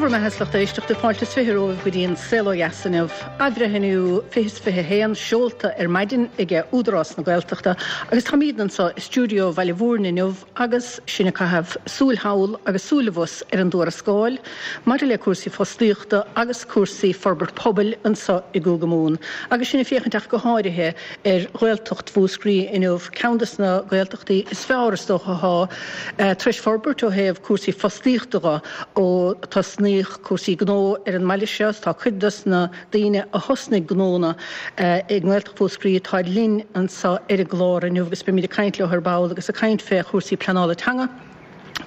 Go raibh maith agat a lucht éisteachta, fáilte is 20 romhaibh go dtí an Saol Ó Dheas inniu. Athbhreithniú 2021 seolta ar maidin ag Údarás na Gaeltachta agus táimidne anseo i stiúideo Bhaile Mhúirne inniu agus sinn ag caitheamh súil thall agus súil abhus ar an dtuarascáil maidir le cúrsaí fostaíochta agus cúrsaí forbairt pobail anseo i gCúige Mumhan agus sinn ag féachaint ach go háirithe ar Ghaeltacht Mhúscraí inniu, ceann de na Gaeltachtaí is fearr is dócha atá tar éis forbairt ó thaobh cúrsaí fostaíochta dho ó tosnaíodh cúrsaí gnó ar an mbaile seo. Tá cuid dos na daoine a thosnaigh gnónna i nGaeltacht Mhúscraí atáid linn anseo ar an gclár inniu agus beimid ag caint leo ar ball agus ag caint fé chúrsaí pleanála teanga,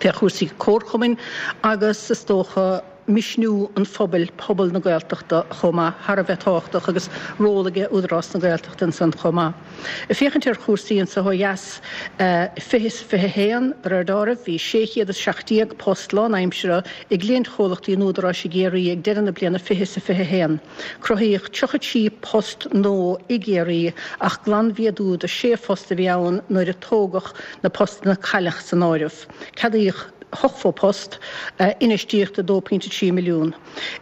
fé chúrsaí comharchumainn agus is dócha misniú an phobail, pobal na Gaeltachta chomh maith, thar a bheith tábhachtach agus ról aige Údarás na Gaeltachta ansan chomh maith. Ag féachaint ar chúrsaí anso ó dheas, 20 is 21, de réir dealraimh, bhí 617 post lánaimseartha i gcliaintchomhlachtaí an Údaráis i gCiarraí ag deireadh na bliana 20 is 21. Cruthaíodh 33 post nua i gCiarraí ach glanmhéadú de 6 phost a bhí ann nuair a tógadh na postanna a cailleadh san áireamh. Ceadaíodh 80 post, infheistíocht 2.3 milliún.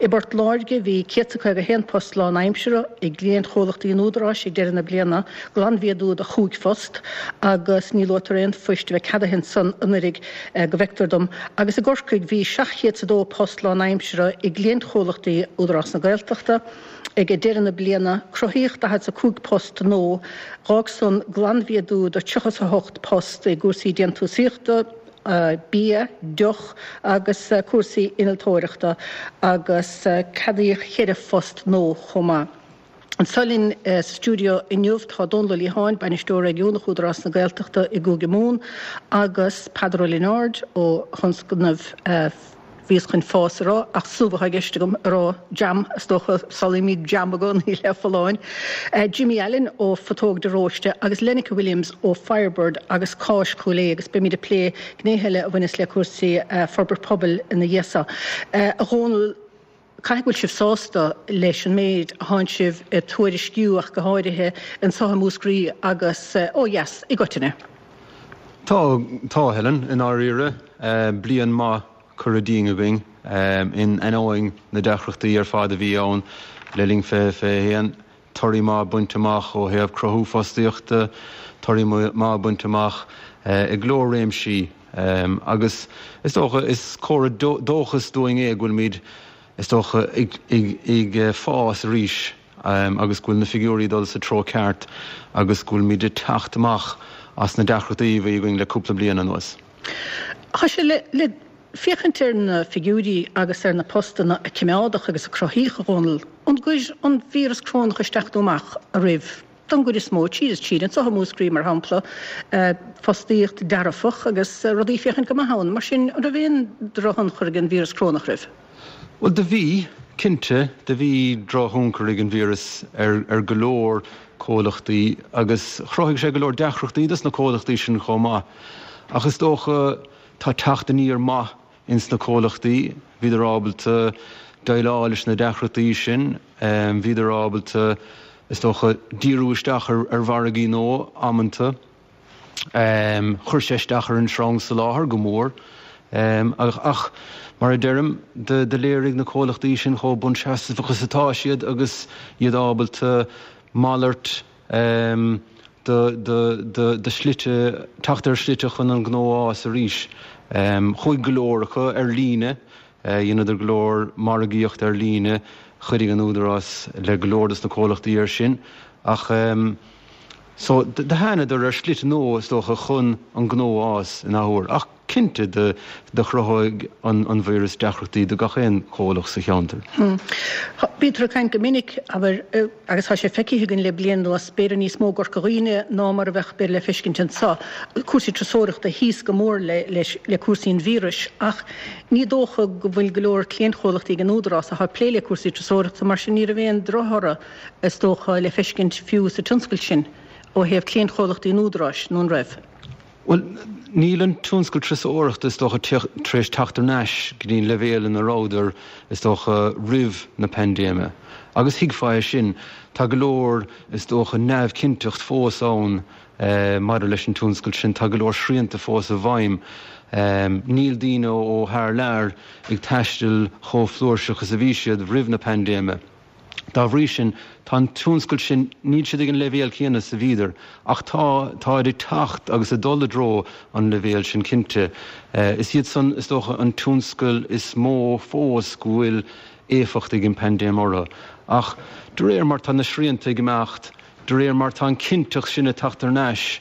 I bPort Láirge bhí 151 post lánaimseartha i gcliaintchomhlachtaí an Údaráis ag deireadh na bliana, glanmhéadú de chúig phost, agus ní luaitear aon phoist a bheith ceadaithe ansan anuiridh go bhfeictear dom, agus i gCorcaigh bhí 702 post lánaimseartha i gcliaintchomhlachtaí Údarás na Gaeltachta ag deireadh na bliana, cruthaíodh 45 post nua, d'fhág san glanmhéadú de 38 post i gcúrsaí déantúsaíochta, bia, deoch agus cúrsaí innealtóireachta agus ceadaíodh cheithre phost nua chomh maith. Anseo linn sa stiúideo inniu tá Dónal Ó Liatháin, Bainisteoir Réigiúnach Údarás na Gaeltachta i gCúige Mumhan agus Peadar Ó Lionáird ó thionscnamh Bhíos chun fás a rá, ach subh atá i gceist agam a rá, jam, is dócha, samhlaímid jam i gcónaí le folláin. Jimmy Allen ó Phutóg de Róiste agus Lenneke Williams ó Firebird agus Cáis Chúil Aodha agus beimid ag plé gnéithe eile a bhaineas le cúrsaí forbairt pobail ina dhiaidh so. A Dhónaill, caithfidh go bhfuil sibh sásta leis an méid a thánn sibh ag tuairisciú ach go háirithe anseo i Múscraí agus ó dheas i gcoitinne. Tá, tá, Helen, i ndáiríre. Bliain maith curtha dínn againn in ainneoin na deacrachtaí ar fad a bhí ann le linn 2021. Torthaí maith bainte amach ó thaobh cruthú fostaíochta, torthaí maith bainte amach i go leor réimsí agus is dócha is comhartha dóchais dúinn é go bhfuilimid is dócha ag fás arís agus go bhfuil na figiúirí ag dul sa treo ceart agus go bhfuilimid ag teacht amach as na deacrachtaí a bhí againn le cúpla bliain anuas. Tá sé le féachaint ar na figiúirí agus ar na postanna a coimeádadh agus a cruthaíodh, a Dhónaill, an gcuir an víreas corónach isteach nó amach oraibh don gcuid is mó, tríd is tríd, anseo i Múscraí, mar shampla, fostaíocht dearfach agus rudaí ag féachaint go maith ann. Mar sin, an raibh aon drochthionchar ag an víreas corónach oraibh? Bhuel, do bhí, cinnte, do bhí drochthionchar ag an víreas ar ar go leor comhlachtaí agus chruthaigh sé go leor deacrachtaí dos na comhlachtaí sin chomh maith. Ach is dócha tá teacht aniar maith ins na comhlachtaí, bhíodar ábalta déileáil leis na deacrachtaí sin, bhíodar ábalta, is dócha, díriú isteach ar ar mhargaí nua amanta. Chuir sé isteach ar an sreang soláthair go mór ach mar a deirim, do léirigh na comhlachtaí sin chomh buanseasmhach is atá siad agus iad ábalta malairt de shlite, teacht ar shlite chun an gnó a fhás arís. Chuaigh go leor acu ar líne Dheineadar go leor margaíocht ar líne, chuidigh an Údarás le go leor dos na comhlachtaí ar sin ach so do thánadar ar shlite nua is dócha chun an gnó a fhás in athuair. Ach cinnte do chruthaigh an víreas deacrachtaí do gach aon chomhlacht sa cheantar. Bítear ag caint go minic, abair, agus tá sé feicthe againn le bliain anuas, b'fhéidir níos mó i gCorca Dhuibhne ná mar a bheadh b'fhéidir le feiscint anseo, cúrsaí turasóireachta thíos go mór le cúrsaí an víris ach Ní dócha go bhfuil go leor cliantchomhlachtaí ag an Údarás atá ag plé le cúrsaí turasóireachta, mar sin ní raibh aon drochthoradh, is dócha, le feiscint fiú sa tionscal sin ó thaobh cliantchomhlachtaí an Údaráis, nó an raibh? Bhuel, níl an tionscal turasóireachta, is dócha, tar éis teacht thar n-ais go dtí an leibhéal ina rabhadar, is dócha, roimh na paindéime. Agus thuigfeá é sin. Tá go leor, is dócha, neamhchinnteacht fós ann maidir leis an tionscal sin. Tá go leor srianta fós i bhfeidhm. Níl daoine ó thar lear ag taisteal chomh flúirseach is a bhí siad roimh na paindéime. Dá bhrí sin, tá an tionscal sin, níl siad ag an leibhéal céanna is a bhíodar, ach tá, táid ag teacht agus ag dul i dtreo an leibhéil sin cinnte. Is iad san, is dócha, an tionscal is mó fós go bhfuil éifeacht ag an bpaindéim orthu. Ach de réir mar tá na srianta ag imeacht, de réir mar tá an chinnteacht sin ag teacht thar n-ais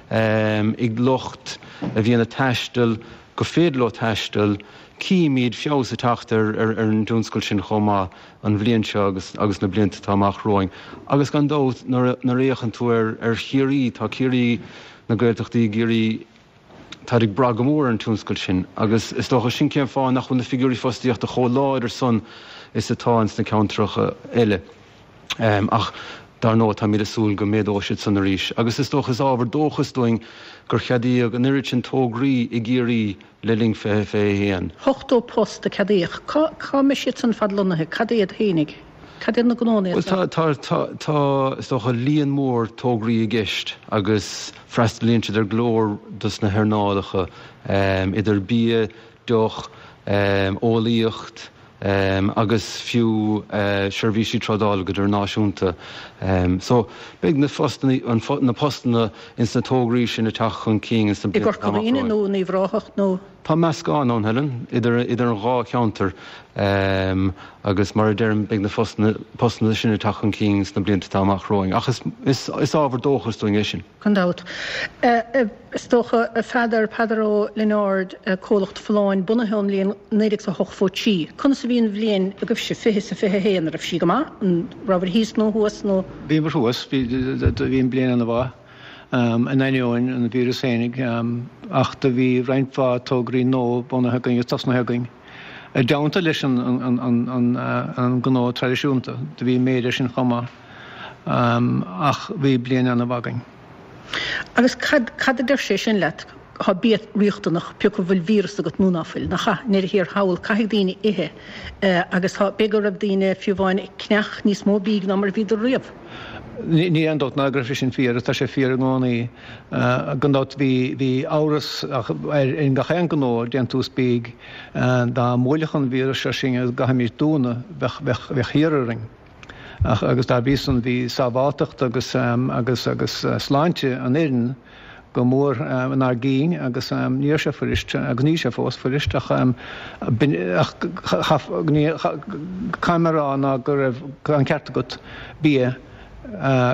ag lucht a bhíonn ag taisteal, go féidir leo taisteal, címid feabhas ag teacht ar an dtionscal sin chomh maith an bhliain seo agus na blianta atá amach romhainn. Agus gan dabht, nuair a fhéachann tú ar Chiarraí, tá Ciarraí, na Gaeltachtaí i gCiarraí, táid ag brath go mór ar an tionscal sin agus is dócha sin cén fáth nach bhfuil na figiúirí fostaíochta chomh láidir san is atá ins na ceantracha eile. Ach dar ndóigh táimid ag súil go méadóidh siad san arís agus is dócha is ábhar dóchais dúinn gur cheadaíodh an oiread sin tograí i gCiarraí le linn 2021. 80 post a ceadaíodh. Cá cá mbeidh siad san fad lonnaithe? Cad iad fhéinig? Cad iad na gnónna iad san? Bhuel tá, tá, tá, is dócha líon mór tograí i gceist agus freastalaíonn siad ar go leor dos na hearnálacha, idir bia, deoch, eolaíocht agus fiú seirbhísí trádála go hidirnáisiúnta. So beidh na postanna, na postanna ins na tograí sin ag teacht chun cinn ins na blianta atá amach romhainn. I gCorca Dhuibhne nó in Uíbh Ráthach nó? Tá meascán ann, Helen, idir idir an dhá cheantar agus mar a deirim beidh na postanna sin ag teacht chun cinn sna blianta atá amach romhainn ach is is ábhar dóchais dúinn é sin. Gan dabht. Is dócha, a Pheadair, Peadar Ó Lionáird, comhlacht Folláin, bunaithe ón mbliain 1983. Conas a bhí an bhliain agaibhse, 20 is a 21, an raibh sí go maith? An rabhabhair thíos nó thuas nó? Bhíomar thuas, bhí an bliain ana-mhaith, in ainneoin an víreas fhéinig, ach do bhí roinnt mhaith tograí nua bunaithe againn agus tosnaithe againn. I dteannta leis an ngnó traidisiúnta, do bhí méid air sin chomh maith. Ach bhí bliain ana-mhaith againn. Agus cad, cad a deir sé sin leat? Tá bia riachtanach, pé acu bhfuil víreas agat nó ná fuil, nach ea? I ndeireadh thiar thall, caithfidh daoine ithe agus tá, b'fhéidir go raibh daoine fiú amháin ag ceannach níos mó bídh ná mar a bhíodar riamh. Níl aon dabht ná go raibh sé sin fíor, tá sé fíor i gcónaí. Gan dabht bhí, bhí amhras ar, ar gach aon ghnó déantús bídh, dá mbuailfeadh an víreas seo sinn agus go gcaithfimis dúnadh, bheadh, bheadh, bheadh thiar orainn. Ach agus dá bhrí san bhí sábháltacht agus agus agus sláinte an fhoireann go mór inár gcinn agus ní raibh sé fuirist agus níl sé fós fuirist ach ach caithfidh mé a rá ná go raibh an ceart agat bia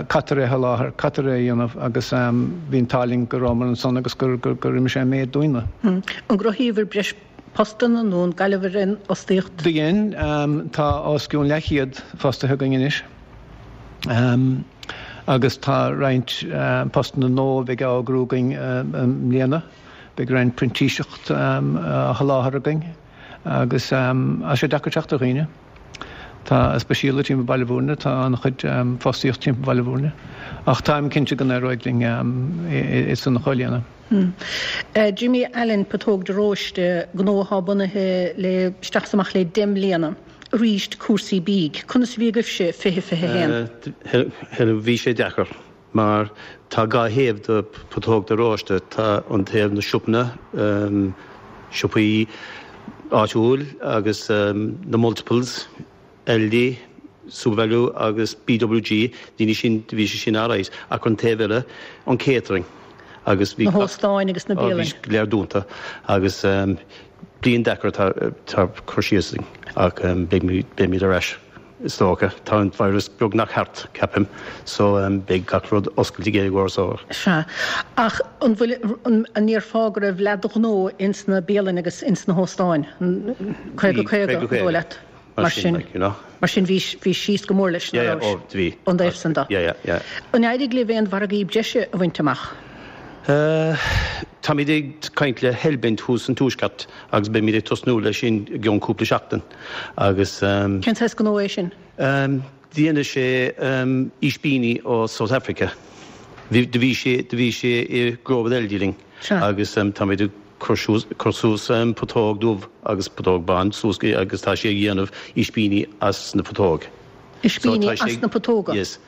caitear é a sholáthar, caitear é a dhéanamh agus bhí an t-ádh linn go rabhamar ansan agus gur gur imigh sé an méid dúinne. An gcruthaíobhair breis postanna nó an gcailleabhair aon fhostaíocht? Do dhein. Tá os cionn leathchéad fostaithe againn anois agus tá roinnt postanna nua a bheidh á eagrú againn i mbliana. Beidh roinnt printíseacht á sholáthar againn agus tá sé deacair teacht ar dhaoine. Tá, speisialta timpeall Baile Bhúirne, tá an-chuid fostaíocht timpeall Bhaile Bhúirne ach táim cinnte go n-éireoidh linn é san a chomhlíonadh. Jimmy Allen, Putóg de Róiste, gnó atá bunaithe le isteach is amach le 10 mbliana. Arís cúrsaí bídh. Conas a bhí agaibhse 20, 21? Bhí sé deacair mar tá dhá thaobh de Putóg de Róiste. Tá an taobh na siopanna, siopaí áitiúil agus na multiples, Aldi, Supervalu agus BWG, daoine sin, bhí sé sin alright, ach an taobh eile, an catering agus bhí. Na hóstáin agus na bialanna. Bhí go léir dúnta agus bliain deacair atá cur síos againn ach beimid ar ais is dócha. Tá an virus beagnach thart, ceapaim, so beidh gach rud oscailte i gcomhair so. Sea. Ach an bhfuil, an ndéarfá go raibh leath de ghnó ins na bialanna agus ins na hóstáin? 50, 50, an dóigh leat? Mar sin, like, you know. Mar sin bhí, bhí síos go mór leis, yeah, yeah, oh, bhí. Ón dtaobh san de. Yeah, yeah, yeah. An éirigh libh aon mhargaí breise a bhaint amach? Uh, táimid ag caint le Hellbent thuas san Tuaisceart agus beimid ag tosnú leis sin i gceann cúpla seachtain agus um, Cén saghas gnó é sin? Um, déanann sé um, ispíní ó South Africa. Bhí, do bhí sé, do bhí sé i Grow with Aldi linn agus um, táimid ag cur suas, cur suas putóg dubh agus putóg bán suas agus tá sé ag dhéanamh ispíní as na putóg. Ispíní as na putóga? Yes.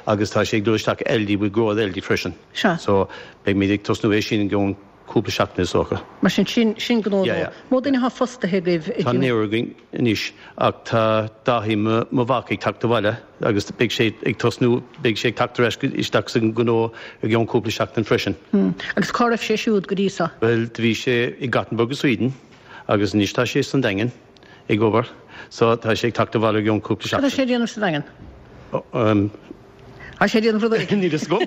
Agus tá sé ag dul isteach Aldi with Grow with Aldi freisin. Sea. So beidh muid ag tosnú é sin i gceann. cúpla seachtain is dócha. Mar sin, sin, sin gnó Yeah, nua. yeah. Mó duine atá fostaithe agaibh i Tá naonúr againn anois ach tá Dáithí, mo, mo mhac, ag teacht abhaile agus beidh sé ag tosnú, beidh sé ag teacht ar ais isteach sa ngnó i gceann cúpla seachtain freisin. Agus cá raibh sé siúd go dtí seo? Bhuel, do bhí sé i Gothenburg i Sweden agus anois tá sé san Daingean ag obair so tá sé ag teacht abhaile i gceann cúpla Cad tá seachtain. sé ag déanamh sa Daingean? Tá sé ag déanamh rud éigin. Níl fhios agam.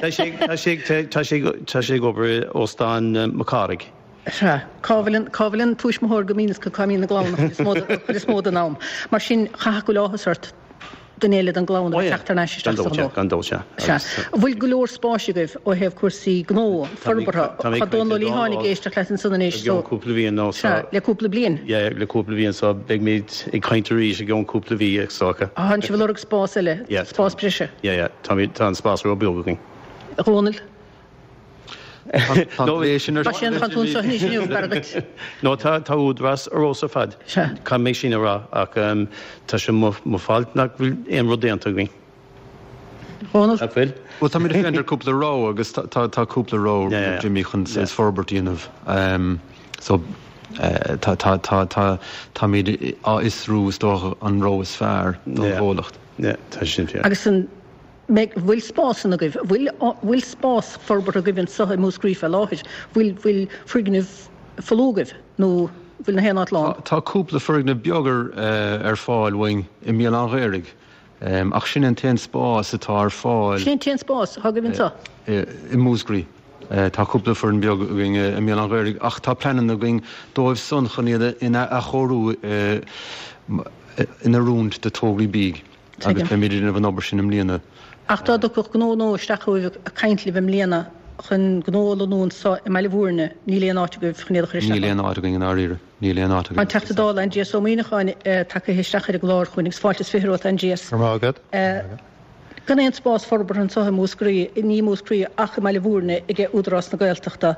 Tá sé, tá sé, tá sé, tá sé ag obair i Óstán Mac Cárthaigh. Sea. Cá bhfuil an, cá bhfuil an tuismitheoir go mbíonn, cá mbíonn a gclann an chuid is mó, an chuid is mó den am. Mar sin, chaithfeadh go bhfuil áthas ort duine eile den gclann a bheith ag teacht thar n-ais isteach sa ghnó. Gan dabht, sea. Sea. An bhfuil go leor spáis agaibh ó thaobh cúrsaí gnó, forbartha? Tá Dónal Ó Liatháin ag éisteacht leat ansan anois I gceann cúpla mhí nó so. Sea, le cúpla bliain. Yeah, le cúpla bliain so beimid ag caint arís i gceann cúpla mhí is dócha. Tánn sibh ag lorg spás eile, spás breise. Yeah, yeah, tá an spás ró-bheag againn. A Dhónaill? Tá an plé sin ar Tá sé an tú anseo anois inniu, b'fhearr duit. No, tá tá Údarás ar fheabhas ar fad. Sea. Caithfidh mé sin a rá ach tá sé mo mo fault nach bhfuil aon rud déanta againn. Dhónaill? Nach bhfuil? Bhuel, táimid ag féachaint ar cúpla rogha agus tá tá tá cúpla rogha Yeah, yeah. Jimmy chun Yeah. forbairt a dhéanamh. So tá tá tá tá táimid á fhiosrú is dócha an rogha is fearr don Yeah. chomhlacht. Yeah, tá sin fíor. Agus an mbeidh, bhfuil spásanna agaibh, bhfuil, bhfuil spás forbartha agaibh anseo i Múscraí fé láthair, bhfuil, bhfuil foirgneamh folamh agaibh nó bhfuil na haon áit lán? Tá cúpla foirgneamh beag ar, ar fáil uainn i mBéal Átha an Ghaorthaidh, ach sin é an t-aon spás atá ar fáil. Sin é an t-aon spás atá agaibh anseo? I Múscraí. Tá cúpla foirgneamh beag againn i mBéal Átha an Ghaorthaidh ach tá pleananna againn dóibh san chun iad a athchóiriú in oiriúint do tograí bídh. Agus beimid ag déanamh an obair sin i mbliana. Ach dá dtiocfadh gnó nua isteach chugaibh ag caint libh i mbliana chun gnó a lonnú anseo i mBaile Bhúirne, níl aon áit agaibh chun iad a chur isteach Níl ann. aon áit againn i ndáiríre. Níl aon áit Tá againn. an Teachta Dála Aindrias Ó Muimhneacháin tagaithe isteach ar an gclár chugainn agus fáilte is 20 romhat Aindrias. Go raibh maith agat. Gan aon spás forbartha anseo i Múscraí, ní i Múscraí ach i mBaile Bhúirne ag Údarás na Gaeltachta.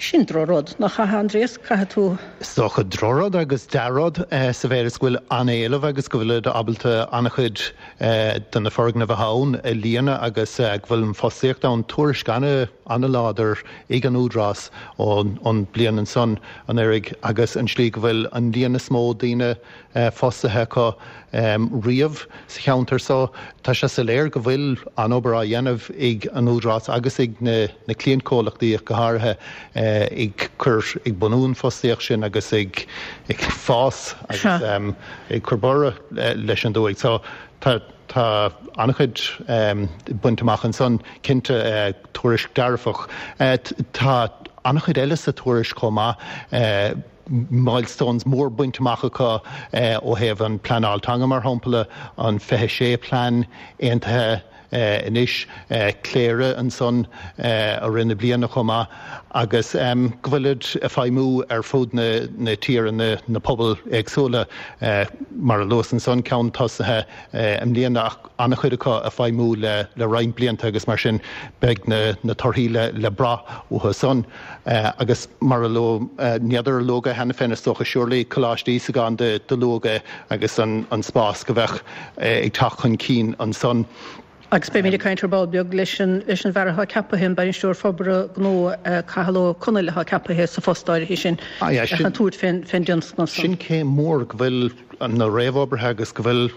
Sin drochrud, nach ea, Aindrias? Caithfidh tú. Is dócha drochrud agus dea-rud sa mhéid is go bhfuil an-éileamh agus go bhfuilid ábalta an-chuid de na foirgnimh atá ann a líonadh agus go bhfuil an fostaíocht ann. Tuairisc an-láidir ag an Údarás ón bliain ansan anuraidh agus an slí go bhfuil an líon is mó daoine fostaithe acu riamh sa cheantar so. Tá sé soiléir go bhfuil an-obair á dhéanamh ag an Údarás agus ag na cliantchomhlachtaí ach go háirithe ag cur, ag bunú an fostaíocht sin agus ag fás agus ag cur borradh leis an dúthaigh. So tá tá an-chuid bainte amach ansan, cinnte, tuairisc dearfach. Tá an-chuid eile sa tuairisc chomh maith. milestones mór bainte amach acu ó thaobh an pleanáil teanga mar shampla, an 26 plean aontaithe anois, Cléire ansan i rith na bliana chomh maith agus go bhfuilid ag feidhmiú ar fud na tíre, na pobail éagsúla mar a luas ansan, ceann tosaithe i mbliana ach an-chuid acu ag feidhmiú le roinnt blianta agus mar sin beidh na torthaí le brath uathu san. Agus mar a luadh, n'fheadar ar luadh é cheana féin, is dócha, surely, Coláiste Íosagáin do luadh é agus an spás go bheadh ag teacht chun cinn ansan. Agus beimid ag caint ar ball beag leis an leis an bhfear atá ceapaithe, an Bainisteoir Forbartha Gnó, Cathal Ó Conaill atá ceapaithe sa phost áirithe sin chun tabhairt fén fén dtionscnamh san. Sin céim mhór go bhfuil na réamhoibrithe agus go bhfuil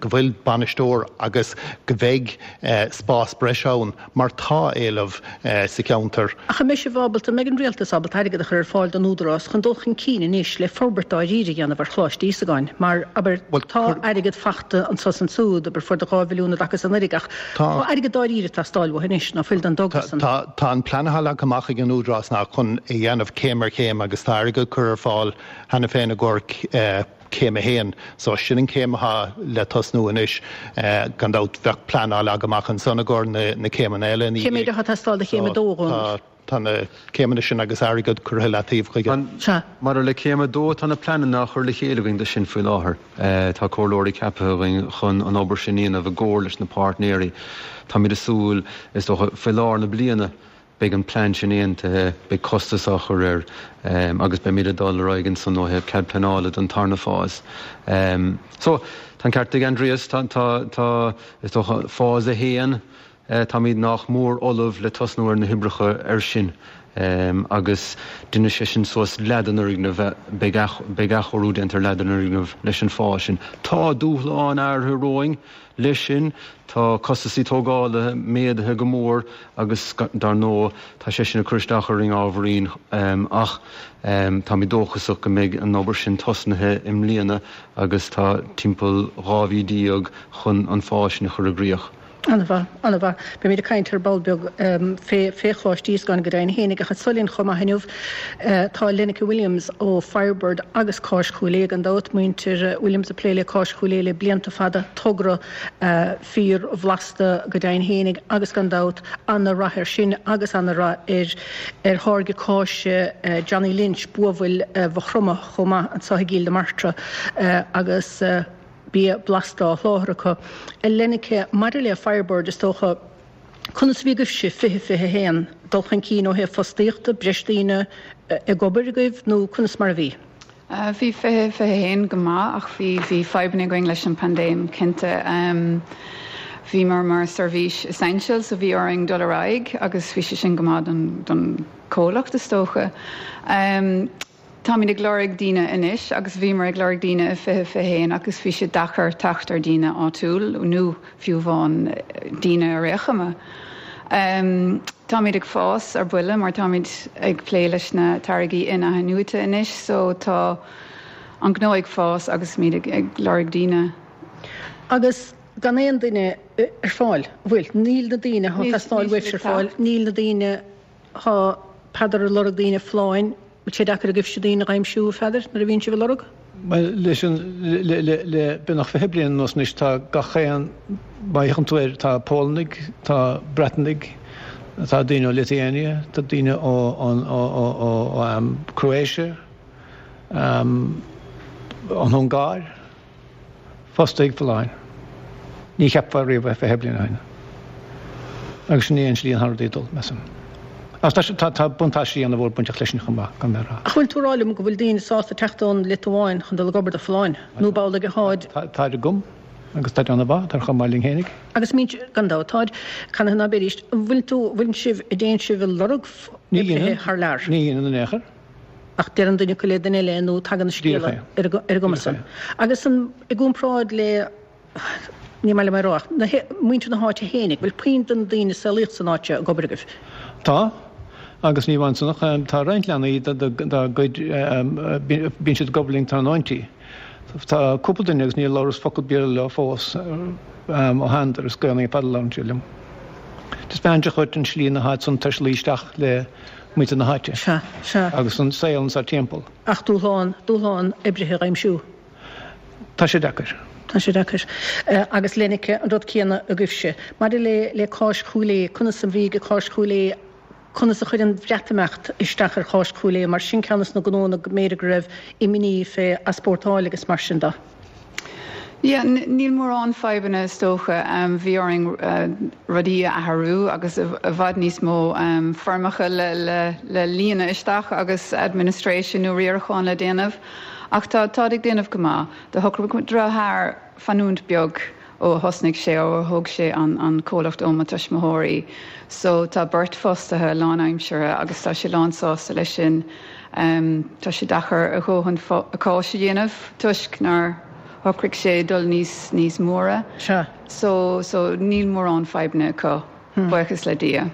go bhfuil bainisteoir agus go mbeidh spás breise ann. mar tá éileamh sa cheantar. Ach an mbeidh sibh ábalta, an mbeidh an Rialtas ábalta airgead a chur ar fáil don Údarás chun dul chun cinn anois le forbairt dáiríre a dhéanamh ar Choláiste Íosagáin? Mar, abair, tá airgead fachta anso is ansúd, abair, fuair 2 mhilliún i dtaca is anuraidh ach tá airgead dáiríre ag teastáil uathu anois, ná fuil don dtogra san? Tá, tá an plean atá leagtha amach ag an Údarás ná chun é dhéanamh céim ar chéim agus tá airgead curtha ar fáil cheana féin i gcomhair Céim 1. So sin an chéim atá le tosnú anois. Gan dabht bheadh plean á leagadh amach ansan i gcomhair na céimeanna eile ina Cé méid dhiaidh. atá ag teastáil do chéim 2, a Dhónaill? Tá na céimeanna sin agus airgead curtha i leataobh chuige. Sea. Maidir le céim 2, tá na pleananna á chur le chéile againn do sin faoi láthair. Tá comhairleoirí ceaptha againn chun an obair sin a dhéanamh i gcomhar leis na páirtnéirí. Táimid ag súil, is dócha, faoi lár na bliana, Beidh an plean sin aontaithe, beidh costas á chur air agus beimid ag dul ar aghaidh ansan ó thaobh cead pleanála don tarna fás. So, tá an ceart ag Aindrias, tá, tá, tá, is dócha, fás 1. Táimid nách mór ullamh le tosnú ar na hoibreacha air sin agus déanfaidh sé sin suas leath den fhoirgneamh, beidh athchóiriú déanta ar leath den fhoirgneamh leis an fáth sin. Tá dúshláin áirithe romhainn leis sin, tá costasaí tógála méadaithe go mór agus dar ndóigh tá sé sin ag cur isteach orainn ábhairín ach táimid dóchasach go mbeidh an obair sin tosnaithe i mbliana agus tá timpeall 12 mhí chun an fáil sin a chur i gcrích. An-mhaith, an-mhaith. Beimid ag caint ar ball beag fé fé Choláiste Íosgáin go deimhin fhéinig ach anseo linn chomh maith inniu tá Lenneke Williams ó Firebird agus Cáis Chúil Aodha gan dabht, muintir Williams ag plé le Cáis Chúil Aodha le blianta fada, togra fíor bhlasta go deimhin fhéinig agus gan dabht ana-rath air sin agus ana-rath ar ar tháirge cáise Johnny Lynch, buabhaill Mhaigh Chromtha chomh maith anseo i gCill na Martra agus bia blasta á sholáthar acu. A Lenneke, maidir le Firebird, is dócha, conas a bhí agaibhse 2021? Dul chun cinn ó thaobh fostaíochta, breis daoine ag obair agaibh nó conas mar a bhí? Bhí 2021 go maith ach bhí bhí fadhbanna againn leis an paindéim cinnte. Bhíomar mar seirbhís essential so bhí orainn dul ar aghaidh agus bhí sé sin go maith don don comhlacht is dócha. Táimid ag lorg daoine anois agus bhíomar ag lorg daoine i 2021 agus bhí sé deacair teacht ar daoine áitiúil nó fiú amháin daoine ar aon chuma. Táimid ag fás ar buile mar táimid ag plé leis na táirgí in-athnuaite anois so tá an gnó ag fás agus muid ag lorg daoine. Agus gan aon duine ar fáil, an bhfuil? Níl na daoine atá ag teastáil uaibhse ar fáil, níl na daoine Tá Peadar ag lorg daoine Folláin. Bhfuil sé deacair agaibhse daoine a dh'aimsiú, a Pheadair, nuair a bhíonn sibh ag lorg? Bhuel, leis an, le, le, le beagnach 20 bliain anuas anois tá gach aon, má fhéachann tú air, tá Pólannaigh, tá Breatanaigh, tá daoine ó Lithuania, tá daoine ó, ó, ó, ó, ó, ó, Croatia, an Ungáir. Fostaithe ag Folláin. Ní cheapfá riamh é 20 bliain ó shin. Agus sin é an slí an rudaí ag dul, measaim. Ach tá, tá, tá buntáistí ana-mhór bainteach leis sin chomh maith, gan mé a rá. Ach bhfuil tú ag rá liom go bhfuil daoine sásta teacht ón Liotuáin chun dul ag obair do Folláin? Nó b'amhlaidh atáid? Táid agam, agus táid ana-mhaith, táid chomh maith linn fhéinig. Agus mbíonn, gan dabht, táid, canathaobh ná beidís. An bhfuil tú, bhfuil sibh, a dtéann sibh ag lorg oibrithe thar lear? Ní dhéanann in aon chor. Ach deireann duine acu le duine eile nó tagann an scéala ar an gcuma san. Agus an, i gcomparáid le, ní maith liom é a rá ach, na, muintir na háite fhéinig, bhfuil puinn de na daoine a saolaíodh san áit seo ag obair agaibh? Tá, agus ní amháin san ach tá roinnt leanaí dá gcuid, bíonn siad ag obair linn tráthnóintí. Tá cúpla duine agus níor labhras focal Béarla leo fós ó thánadar, is Gaelainn ar fad a labhrann siad liom. Taispeánann sé dhuit an slí na háit san tar éis luí isteach le muintir na háite. Sea, sea. Agus an saol anso timpeall. Ach dúshlán, dúshlán oibrithe a dh'aimsiú. Tá sé deacair. Tá sé deacair. Agus Lenneke, an rud céanna agaibhse. Maidir le, le Cáis Chúil Aodha, conas a bhí ag Cáis Chúil Aodha, conas a chuir an Bhreatimeacht isteach ar Cháis Chúil Aodha, mar sin ceann des na gnóanna go mb'fhéidir go raibh imní fé easpórtáil agus mar sin de. Yeah, níl mórán fadhbanna is dócha. Bhí orainn rudaí a athrú agus i bhfad níos mó foirmeacha le líonadh isteach agus administration nó riarachán le déanamh. Ach tá, táid ag déanamh go maith. Do shocraigh mo dheartháir fanúint beag ó a thosnaigh sé, ó a thóg sé an comhlacht ó mo tuismitheoirí. So tá beirt fostaithe lánaimseartha agus tá sé lán sásta leis sin. Tá sé deacair a dhóthain cáis a dhéanamh toisc nár shocraigh sé dul níos níos móra. Sea. So so níl mórán fadhbanna acu, buíochas le Dia.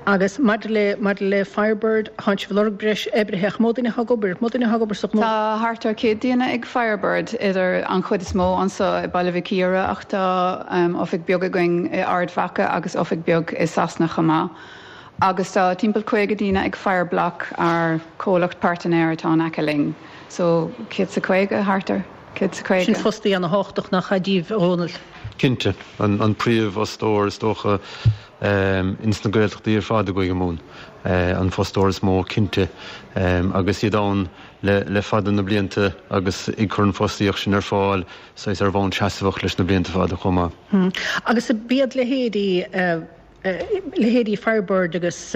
Agus maidir le maidir le Firebird, thánn sibh ag lorg breis oibrithe ach mó duine atá ag obair, mó duine atá ag obair sa ghnó? Tá thart ar 100 duine ag Firebird, idir an chuid is mó anso i Baile Mhic Íre ach tá oifig beag againn i Ard Mhacha agus oifig beag i Sasana chomh maith. Agus tá timpeall 50 daoine ag Fireblock, ár comhlacht pairtnéir atá in aice linn. So, 150, thart ar 150. Sin fostaí ana-thábhachtach nach ea daoibh, a Dhónaill? Cinnte. An príomhfhostóir is dócha ins na Gaeltachtaí ar fad i gCúige Mumhan. An fostóir is mó cinnte. Agus iad ann le fada na blianta agus ag cur an fostaíocht sin ar fáil saghas ar bhonn seasmhach leis na blianta fada chomh maith. Agus b'iad leithéidí leithéidí Firebird agus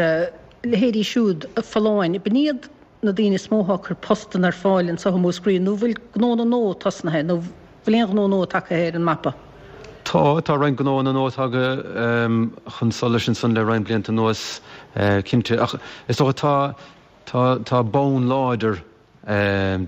leithéidí siúd Folláin, b'in iad na daoine is mó atá ag cur postanna ar fáil anseo i Múscraí, nó bhfuil gnónna nua tosnaithe, nó bhfuil aon ghnó nua tagtha ar an mapa? Tá, tá roinnt gnóanna nua tagtha chun solais ansan le roinnt blianta anuas, cinnte. Ach is dócha tá, tá, tá bonn láidir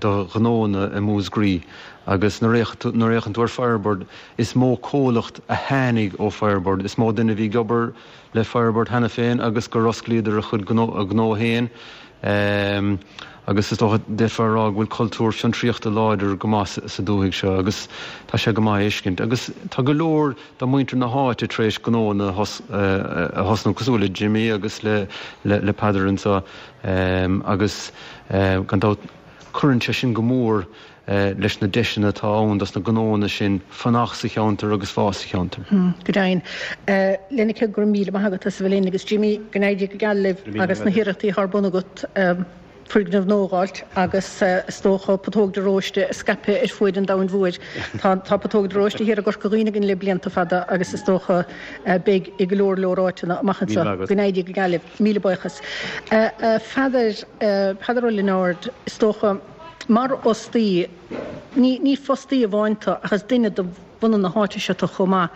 do ghnóanna i Múscraí agus nuair a fhéachann tú ar Firebird, is mó comhlacht a tháinig ó Firebird, is mó duine a bhí ag obair le Firebird cheana féin agus gur osclaíodar a chuid gnó, a gnó féin. Agus is dócha, d'fhéadfá a rá go bhfuil cultúr fiontraíochta láidir go maith sa dúthaigh seo agus tá sé go maith a fheiscint. Agus tá go leor de mhuintir na háite tar éis gnóanna a thosnú, cosúil le Jimmy agus le Peadar anseo agus gan dabht cuireann sé sin go mór leis na deiseanna atá ann dos na gnóanna sin fanacht sa cheantar agus fás sa cheantar. Go deimhin. Lenneke, go raibh míle maith agat as a bheith linn agus Jimmy, go n-éirí go geal libh agus na hiarrachtaí atá ar bun agat foirgneamh nua a dh'fháilt agus is dócha Putóg de Róiste a scaipeadh ar fuaid an domhain mhóir. Tá tá Putóg de Róiste thiar i gCorca Dhuibhne againn le blianta fada agus is dócha beidh i go leor leor áiteanna amach anseo. Go n-éirí go geal libh. Míle buíochas. A Pheadair, Peadar Ó Lionáird, is dócha, Mar fhostaí, ní ní fostaí amháin tú ach is duine de bhunadh na háite seo tú chomh maith.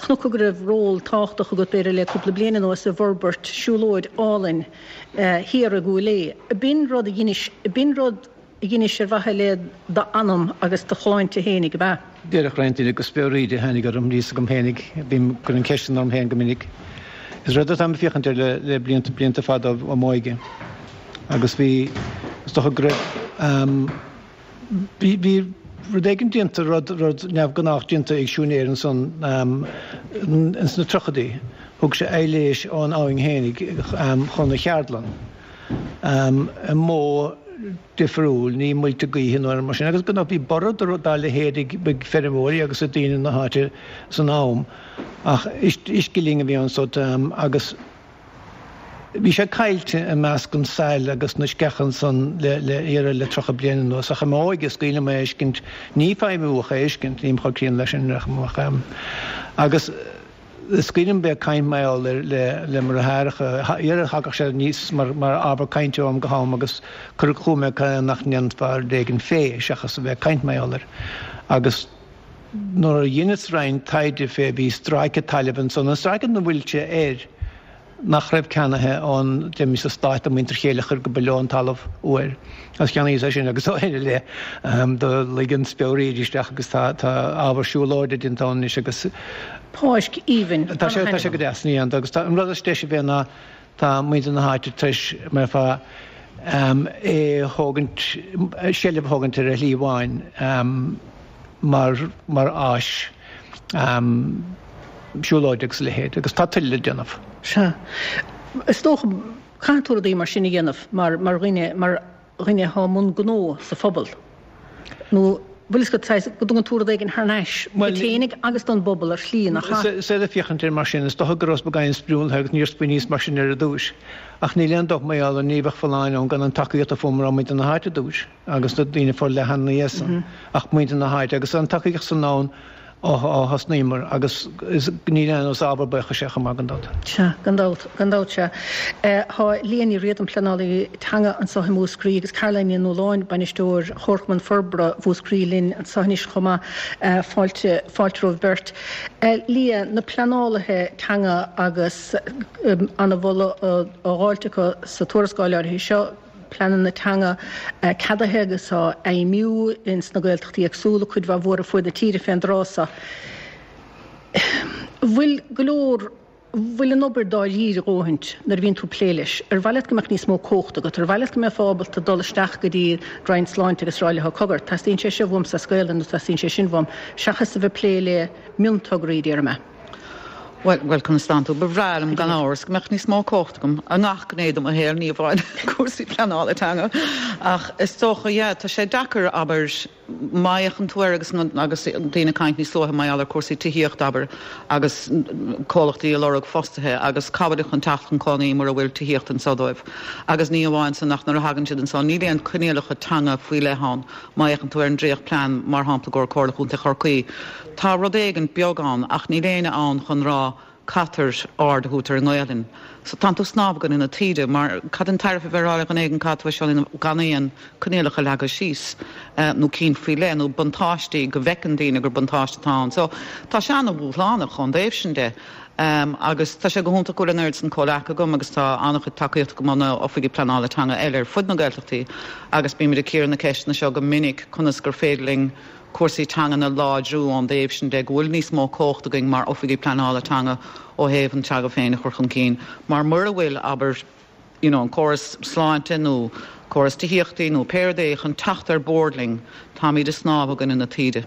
Chonac go raibh ról tábhachtach agat b'fhéidir le cúpla bliain anuas i bhforbairt siúlóid álainn thiar i gCúil Aodha. B'in rud a dheinis, b'in rud a dheinis ar mhaithe le d'anam agus do shláinte fhéinig, ab ea? Déarfadh roinnt daoine gur speoraíd a tháinig orm, níl 'fhios agam fhéinig, bím ag cur an cheist sin orm féin go minic. Is rud atáim ag féachaint air le le blianta, blianta fada ó m'óige. Agus bhí, is dócha go raibh, bhí, bhí rud éigin déanta, rud, rud neamhghnách déanta ag siúinéir ansan ins na tríochaidí. Thug sé aibhléis ón abhainn fhéinig chun a cheardlann i modh difriúil, ní muilte gaoithe nó mar sin. Agus gan dabht bhí borradh dá leithéid ag feirmeoirí agus ag daoine na háite san am. Ach uisce linn a bhí ansan agus. Bhí sé caillte i measc an tsail agus na sceacha ansan le le iarraidh le 30 bliain anuas ach i m'óige is cuimhin liom é a fheiscint, ní feidhmiú ach é a fheiscint, nílim chomh críonna leis sin ach agus is cuimhin liom bheith ag caint mar gheall air le le mo dheartháireacha, iarraidh thagadh sé aníos mar mar ábhar cainte ó am go ham agus cuireadh chugam é cad é nach ndéanfá rud éigin fé seachas a bheith ag caint mar gheall air agus Nuair a dheineas roinnt taighde fé bhí stráice tailimh ansan, an stráice 'na bhfuil sé air, nach raibh ceannaithe ón deimis sa Stát do muintir Chéileachair go ba leo an talamh uair agus cheannaíos é sin agus ó shin i leith do luigh an speoraíd isteach agus tá tá ábhar siúlóide déanta ann anois agus Páirc aoibhinn, tá sé tá sé go deas ní agus tá an rud is deise fé ná tá muintir na háite tar éis mar fá é a thógaint, seilbh a thógaint ar a shlí amháin mar mar áis siúlóide agus a leithéid agus tá tuilleadh le déanamh. Sea. Is dócha, caithfidh tú rudaí mar sin a dhéanamh mar mar dhuine, mar dhuine atá i mbun gnó sa phobal. Nó bhfuil fhios agat, saghas, go dtugann tú rud éigin thar n-ais duit féinig agus don bpobal ar shlí, nach ea? Is saoil ag féachaint air mar sin, is dócha go rabhas beagáinín sprionlaithe agus níor smaoiníos mar sin ar an dtúis. Ach níl aon dabht mar gheall air, ní bheadh folláine ann gan an tacaíocht a fuaireamar ó mhuintir na háite ar dtúis agus na daoine forleathana ina dhiaidh san, ach muintir na háite agus an tacaíocht san ann ó thosnaíomar agus níl aon is ábhar buíochais é chomh maith gan dabht. Sea, gan dabht, gan dabht, sea. Tá Liadh Ní Riada, pleanálaí teanga anseo i Múscraí agus Caroline Ní Nualláin, bainisteoir Chomharchumann Forbartha Mhúscraí linn anseo anois chomh maith. Fáilte, fáilte romhaibh beirt. Liadh, na pleanálaithe teanga agus an-mholadh á dháilt acu sa tuarascáil áirithe seo, pleananna teanga ceadaithe agus á bhfeidhmiú ins na Gaeltachtaí éagsúla, cuid mhaith mhór ar fuaid na tíre fén dtráth so. Bhfuil go leor, bhfuil an obair dáiríre a dhóthaint nuair a bhíonn tú ag plé leis? Ar mhaith leat go mbeadh níos mó cumhachta agat? Ar mhaith leat go mbeifeá ábalta dul isteach go dtí Roinn Sláinte agus rá leo, cogar, teastaíonn sé seo uaimse as Gaelainn nó teastaíonn sé sin uaim, seachas a bheith ag plé le miontograí, déarfaidh mé? Bhuel, bhuel, conas tánn tú? Ba bhreá liom, gan amhras, go mbeadh níos mó cumhachta agam i ngach gné de mo shaol, ní amháin cúrsaí pleanála teanga. Ach is dócha, yeah, tá sé deacair, abair, má fhéachann tú air agus, agus daoine ag caint níos luaithe mar gheall ar cúrsaí tithíochta, abair, agus comhlachtaí ag lorg fostaithe agus cá bhfuilid chun teacht chun cónaí mura bhfuil tithíocht anseo dóibh. Agus ní amháin san ach nuair a thagann siad anseo, níl aon coinníollacha teanga faoi leith ann. Má fhéachann tú ar an dréachtphlean, mar shampla, i gcomhair Comhairle Chontae Chorcaí, Tá rud éigin beag ann ach níl éinne ann chun rá. Caithfear aird a thabhairt ar an nGaelainn. So tánn tú ag snámh i gcoinne na taoide mar cad an tairbhe a bheith ag rá le dhuine éigin caithfidh tú é seo a dhéanamh gan aon coinníollacha leagtha síos nó cinn faoi leith nó buntáistí go bhfeiceann daoine gur buntáiste atá ann. So tá sé an-dhúshlánach ón dtaobh sin de. Agus tá sé go hiontach go bhfuil an oiread san comhleacaithe agam agus tá an-chuid tacaíochta agam ó na oifigigh pleanála teanga eile ar fud na Gaeltachtaí agus bímid ag cíoradh na ceisteanna seo go minic conas gur féidir linn cúrsaí teangan a láidriú ón dtaobh sin de, go bhfuil níos mó cumhacht againn mar oifigigh pleanála teanga ó thaobh an teanga féin a chur chun cinn mar mura bhfuil, abair, you know an córas sláinte nó córas tithíochtaí nó pé rud é chun teacht ar bord linn, táimid ag snámh i gcoinne na taoide.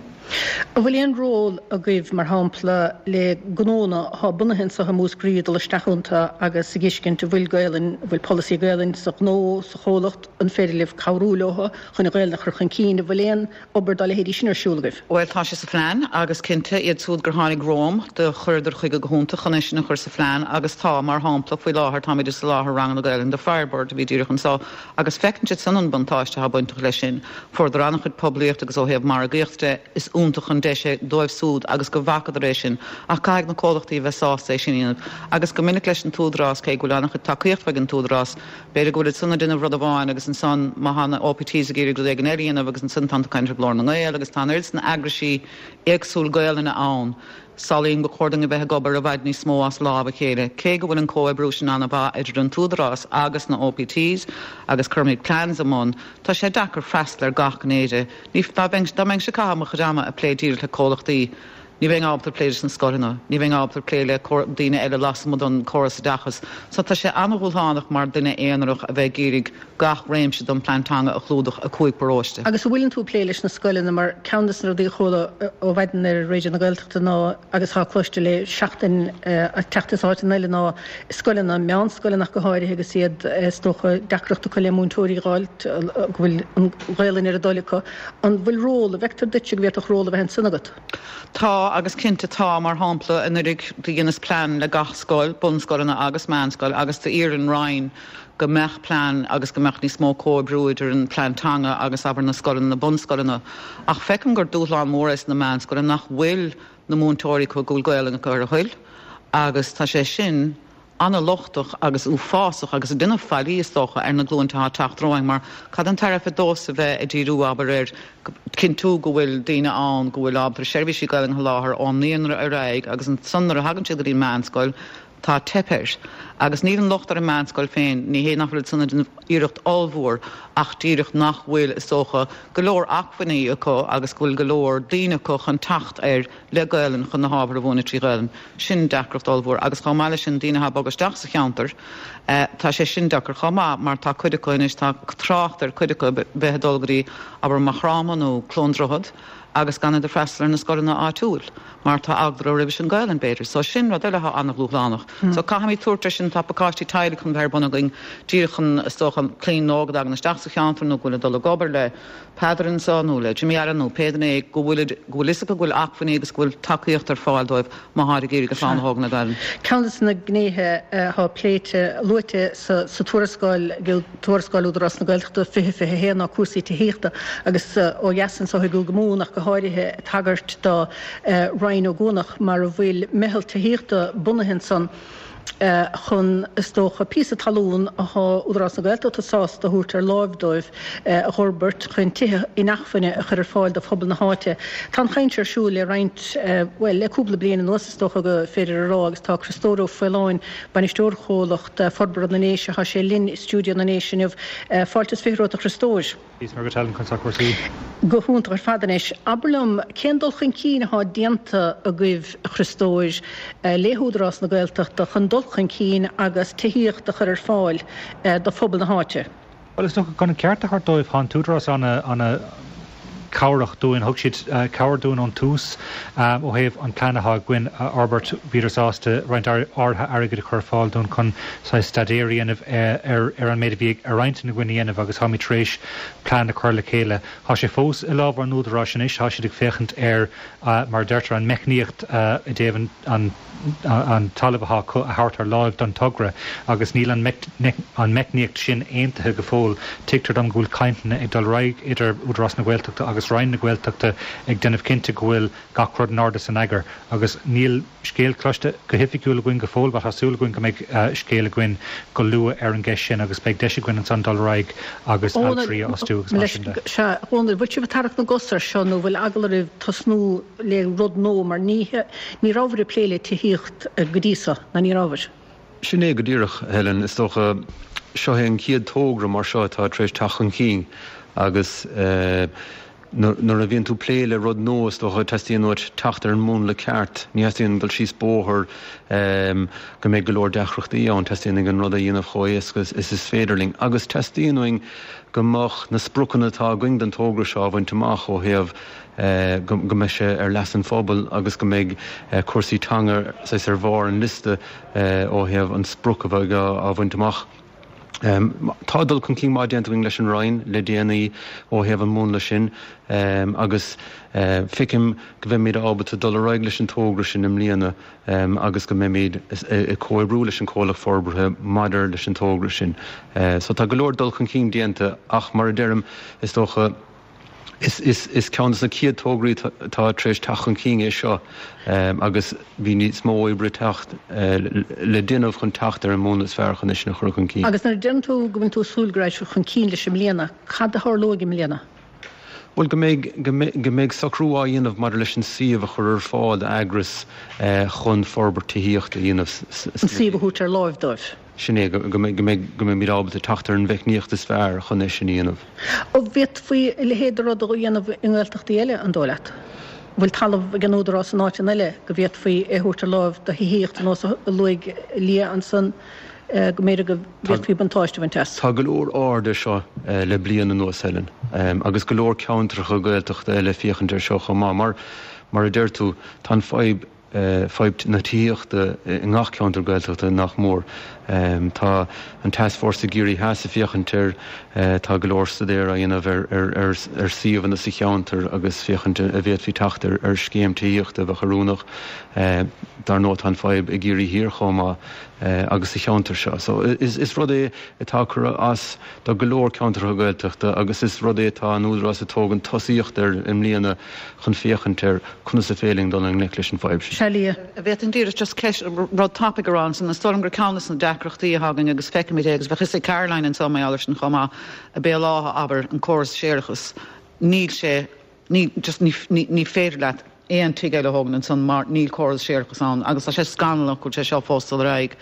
An bhfuil aon ról agaibh, mar shampla, le gnónna atá bunaithe anseo i Múscraí dul isteach iontu agus a dh'fheiscint an bhfuil Gaelainn, an bhfuil polasaí Gaelainn sa ghnó, sa chomhlacht, an féidir libh cabhrú leo chun an Ghaelainn a chur chun cinn, an bhfuil aon obair dá leithéidí sin ar siúl agaibh? Bhuel, tá sé sa phlean agus cinnte, iad siúd gur tháinig romham, do chuireadar chuige go hiontach chun é sin a chur sa phlean agus tá, mar shampla, faoi láthair táimid ag soláthar ranganna Gaelainne do Firebird a bhí díreach anseo agus feiceann siad san an buntáiste atá bainteach leis sin. Fuaireadar an-chuid poiblíocht agus ó thaobh margaíocht de, is iontach an deis é dóibh siúd agus go bhfacadar é sin ach caithfidh na comhlachtaí a bheith sásta é sin a dhéanamh agus go minic leis an t-údarás, cé go bhfuil an-chuid tacaíocht ag an t-údarás, B'fhéidir go bhfuil siad san ag déanamh rud amháin agus ansan má tá na OPTs ag iarraidh rud éigin eile a dhéanamh agus ansan tánn tú ag caint ar Ghlór na nGael agus tá an oiread san eagraisí éagsúil Gaelainne ann. Samhlaím gur chóir dúinn a bheith ag obair i bhfad níos mó as lámh a chéile. Cé go bhfuil an comhoibriú sin an-mhaith idir an t-údarás agus na OPTs agus cuirimid plans i mbun, tá sé deacair freastal ar gach gné de. Ní, dá mbeinnse ag caitheamh mo chuid ama ag plé díreach le comhlachtaí, Ní bheinn ábalta plé leis na scoileanna, ní bheinn ábalta plé le daoine eile lasmuigh den córas oideachais. So tá sé an-dhúshlánach mar duine aonarach a bheith ag iarraidh gach réimse den plean teanga a chlúdach i 5 paróiste. Agus an bhfuileann tú ag plé leis na scoileanna mar ceann de na rudaí a chuala ó mhaidin ar Raidió na Gaeltachta ná agus atá cloiste le seachtain ag teacht as áiteanna eile ná scoileanna, meánscoileanna ach go háirithe agus iad is dócha deacracht acu le múinteoirí a dh'fháilt go bhfuil an Ghaelainn ar a dtoil acu. An bhfuil ról, an bhfeictear duitse go bhféadfadh ról a bheith ansin agat? Tá, agus cinnte tá. Mar shampla, anuraidh do dheineas plean le gach scoil, bunscoileanna agus meánscoil, agus d'iarr an Roinn go mbeadh plean agus go mbeadh níos mó comhoibriú idir an plean teanga agus, abair, na scoileanna, na bunscoileanna. Ach feicim gur dúshlán mór é sna meánscoileanna nach bhfuil na múinteoirí acu go bhfuil Gaolainn acu ar a thoil agus tá sé sin an-lochtach agus uafásach agus ag déanamh faillí, is dócha, ar na glúinte atá ag teacht romhainn mar cad an tairbhe domhsa bheith ag díriú, abair, ar chinntiú go bhfuil daoine ann go bhfuil ábalta seirbhísí Gaelainne a sholáthar ón naíonra ar aghaidh agus ansan nuair a thagann siad go dtí an meánscoil tá teip air. Agus níl an locht ar an meánscoil féin, ní hé nach bhfuil siad san ag déanamh iarracht ollmhór ach díreach nach bhfuil, is dócha, go leor acmhainní acu agus go bhfuil go leor daoine acu chun teacht air le Gaelainn chun na hábhair a mhúineadh trí Ghaelainn. Sin deacracht ollmhór. Agus chomh maith leis sin, daoine atá ag bogadh isteach sa cheantar, tá sé sin deacair chomh maith mar tá cuid acu anois, tá trácht ar cuid acu bheith ag dul go dtí, abair, Maigh Chromtha nó Cluain Droichead agus gan iad ag freastal ar na scoileanna áitiúil mar tá eagla orthu roimh an Ghaelainn, b'fhéidir. So sin rud eile atá an-dhúshlánach. So caithfimid tabhairt air sin, tá pacáistí teaghlaigh chun bheith ar bun againn díreach chun, is dócha, clainn óg a dtagann isteach sa cheantar nó go bhfuil ag dul ag obair le, Peadar anseo nó le Jimmy Allen nó pé duine é go bhfuil go bhfuil fhios acu go bhfuil acmhainní agus go bhfuil tacaíocht ar fáil dóibh má tháid ag iarraidh a chlann a thógaint le Gaelainn. Ceann de na gnéithe atá pléite, luaite sa tuarascáil, tuarascáil Údarás na Gaeltachta 2021 ná cúrsaí tithíochta agus ó dheas anseo i gCúige Mumhan ach go háirithe ag tagairt do Rinn Ó gCuanach mar a bhfuil meitheal tithíochta bunaithe ansan. chun, is dócha, píosa talún atá Údarás na Gaeltachta sásta a thabhairt ar láimh dóibh a dh'fhorbairt chun tithe inacmhainne a chur ar fáil do phobal na háite. Tá an chaint ar siúl le roinnt, bhuel, le cúpla bliain anuas is dócha go féidir a rá agus tá Criostóir Ó Faoláin, bainisteoir Chomhlacht Forbartha na nDéise, tá sé linn i stiúideo na nDéise inniu. Fáilte is 20 romhat a Chriostóir. Is mar go tealann chun sac cúrsaí. Go hiontach ar fad anois. Abair liom, cén dul chun cinn atá déanta agaibh, a Chriostóir, le hÚdarás na Gaeltachta chun dul chun cinn agus tithíocht a chur ar fáil do phobal na háite? Bhuel, is dócha, chun an ceart a thabhairt dóibh, tá an tÚdarás ana-chabhrach dúinn. Thug siad cabhair dúinn ón tús ó thaobh an plean atá againn a fhorbairt. Bhíodar sásta roinnt áirithe airgid a chur ar fáil dúinn chun saghas staidéar a dhéanamh ar an méid a bhí ar intinn againn a dhéanamh agus táimid tar éis plean a chur le chéile. Tá sé fós i lámha an Údaráis anois, tá siad ag féachaint ar, mar a deirtear, an meicníocht i dtaobh an talamh atá acu a thabhairt ar láimh don togra agus níl an meicníocht sin aontaithe go fóill. Tuigtear dom go bhfuil cainteanna ag dul ar aghaidh idir Údarás na Gaeltachta agus. agus Roinn na Gaeltachta ag déanamh cinnte go bhfuil gach rud in ord is in eagar agus níl scéal cloiste go hoifigiúil againn go fóill but tá súil againn go mbeidh scéal againn go luath ar an gceist sin agus beidh deis againn ansan dul ar aghaidh agus altraí a fhostú agus mar sin de. Sea, a Dhónaill, bhfuil sibh ag tarrac na gcos air seo nó bhfuil eagla oraibh tosnú le rud nua mar ní ní rabhabhair ag plé le tithíocht go dtí so, ná ní rabhabhair? Sin é go díreach, a Helen. Is dócha, seo é an chéad togra mar seo atá tar éis teacht chun cinn agus nuair a bhíonn tú ag plé le rud nua, is dócha, teastaíonn uait teacht ar an múnla ceart. Ní theastaíonn dul síos bóthar go mbeidh go leor deacrachtaí ann. Teastaíonn uainn an rud a dhéanamh chomh héasca is is féidir linn. Agus teastaíonn uainn go mbeadh na spriocanna atá againn don togra seo á bhaint amach ó thaobh go mbeidh sé ar leas an phobail agus go mbeidh cúrsaí teanga saghas ar bharr an liosta ó thaobh an sprioc a bheidh á bhaint amach. Tá dul chun cinn maith déanta againn leis an Roinn le déanaí ó thaobh an mhúnla sin agus feicim go mbeimid ábalta dul ar aghaidh leis an togra sin i mbliana agus go mbeimid ag comhoibriú leis an comhlacht forbartha maidir leis an togra sin. So tá go leor dul chun cinn déanta ach mar a deirim, is dócha, Is ceann de na chéad tograí atá tar éis teacht chun cinn é seo agus bhí níos mó oibre teacht le déanamh chun teacht ar an múnla is fearr chun é sin a chur chun cinn. Agus nuair a deireann tú go bhfuil tú ag súil go raghaidh sibh chun cinn leis i mbliana, cad a tharlóidh i mbliana? Bhuel, go mbeidh, go mbeidh socrú á dhéanamh maidir leis an suíomh a chur ar fáil d'eagras chun forbairt tithíochta a dhéanamh. An suíomh a thabhairt ar láimh dóibh. Sin é, go mbeidh, go mbeimid ábalta teacht ar an mheicníocht is fearr chun é sin a dhéanamh. An bhféadfaí a leithéid de rud a dhéanamh i nGaeltachtaí eile, an dóigh leat? An bhfuil talamh ag an Údarás in áiteanna eile go bhféadfaí é a thabhairt ar láimh do thithíocht ar nós a luaigh Liadh ansan, go mb'fhéidir go bhféadfaí buntáiste a bhaint as? Tá go leor aird air seo le bliain anuas, Helen, agus go leor ceantracha Gaeltachta eile ag féachaint air seo chomh maith. Mar, mar a deir tú, tá an fadhb, fadhb na tithíochta i ngach ceantar Gaeltachta nach mór. Tá an Tascfhórsa i gCiarraí Theas ag féachaint air, tá go leor staidéar á dhéanamh ar suíomhanna sa cheantar agus féachaint an bhféadfaí teacht ar scéim tithíochta a bheadh oiriúnach. Dar ndóigh tá an fadhb i gCiarraí Thiar chomh maith agus sa cheantar seo. So is rud é atá ag cur as do go leor ceantracha Gaeltachta agus is rud é atá an Údarás ag tógaint tosaíocht air i mbliana chun féachaint ar conas is féidir linn dul i ngleic leis an bhfadhb sin. Sea, Liadh. An bhféadfainn díreach just ceist, rud tapaidh a rá ansan. Is dóigh liom gur ceann de na deacrachtaí atá againn agus feicimid é agus bheadh fhios ag Caroline anso mar gheall air sin chomh maith, i Béal Átha, abair, an córas séarachais, níl sé, ní, just ní, ní, ní féidir leat aon tigh eile a thógaint ansan mar níl córas séarachais ann agus tá sé scannalach go bhfuil sé seo fós ag dul ar aghaidh.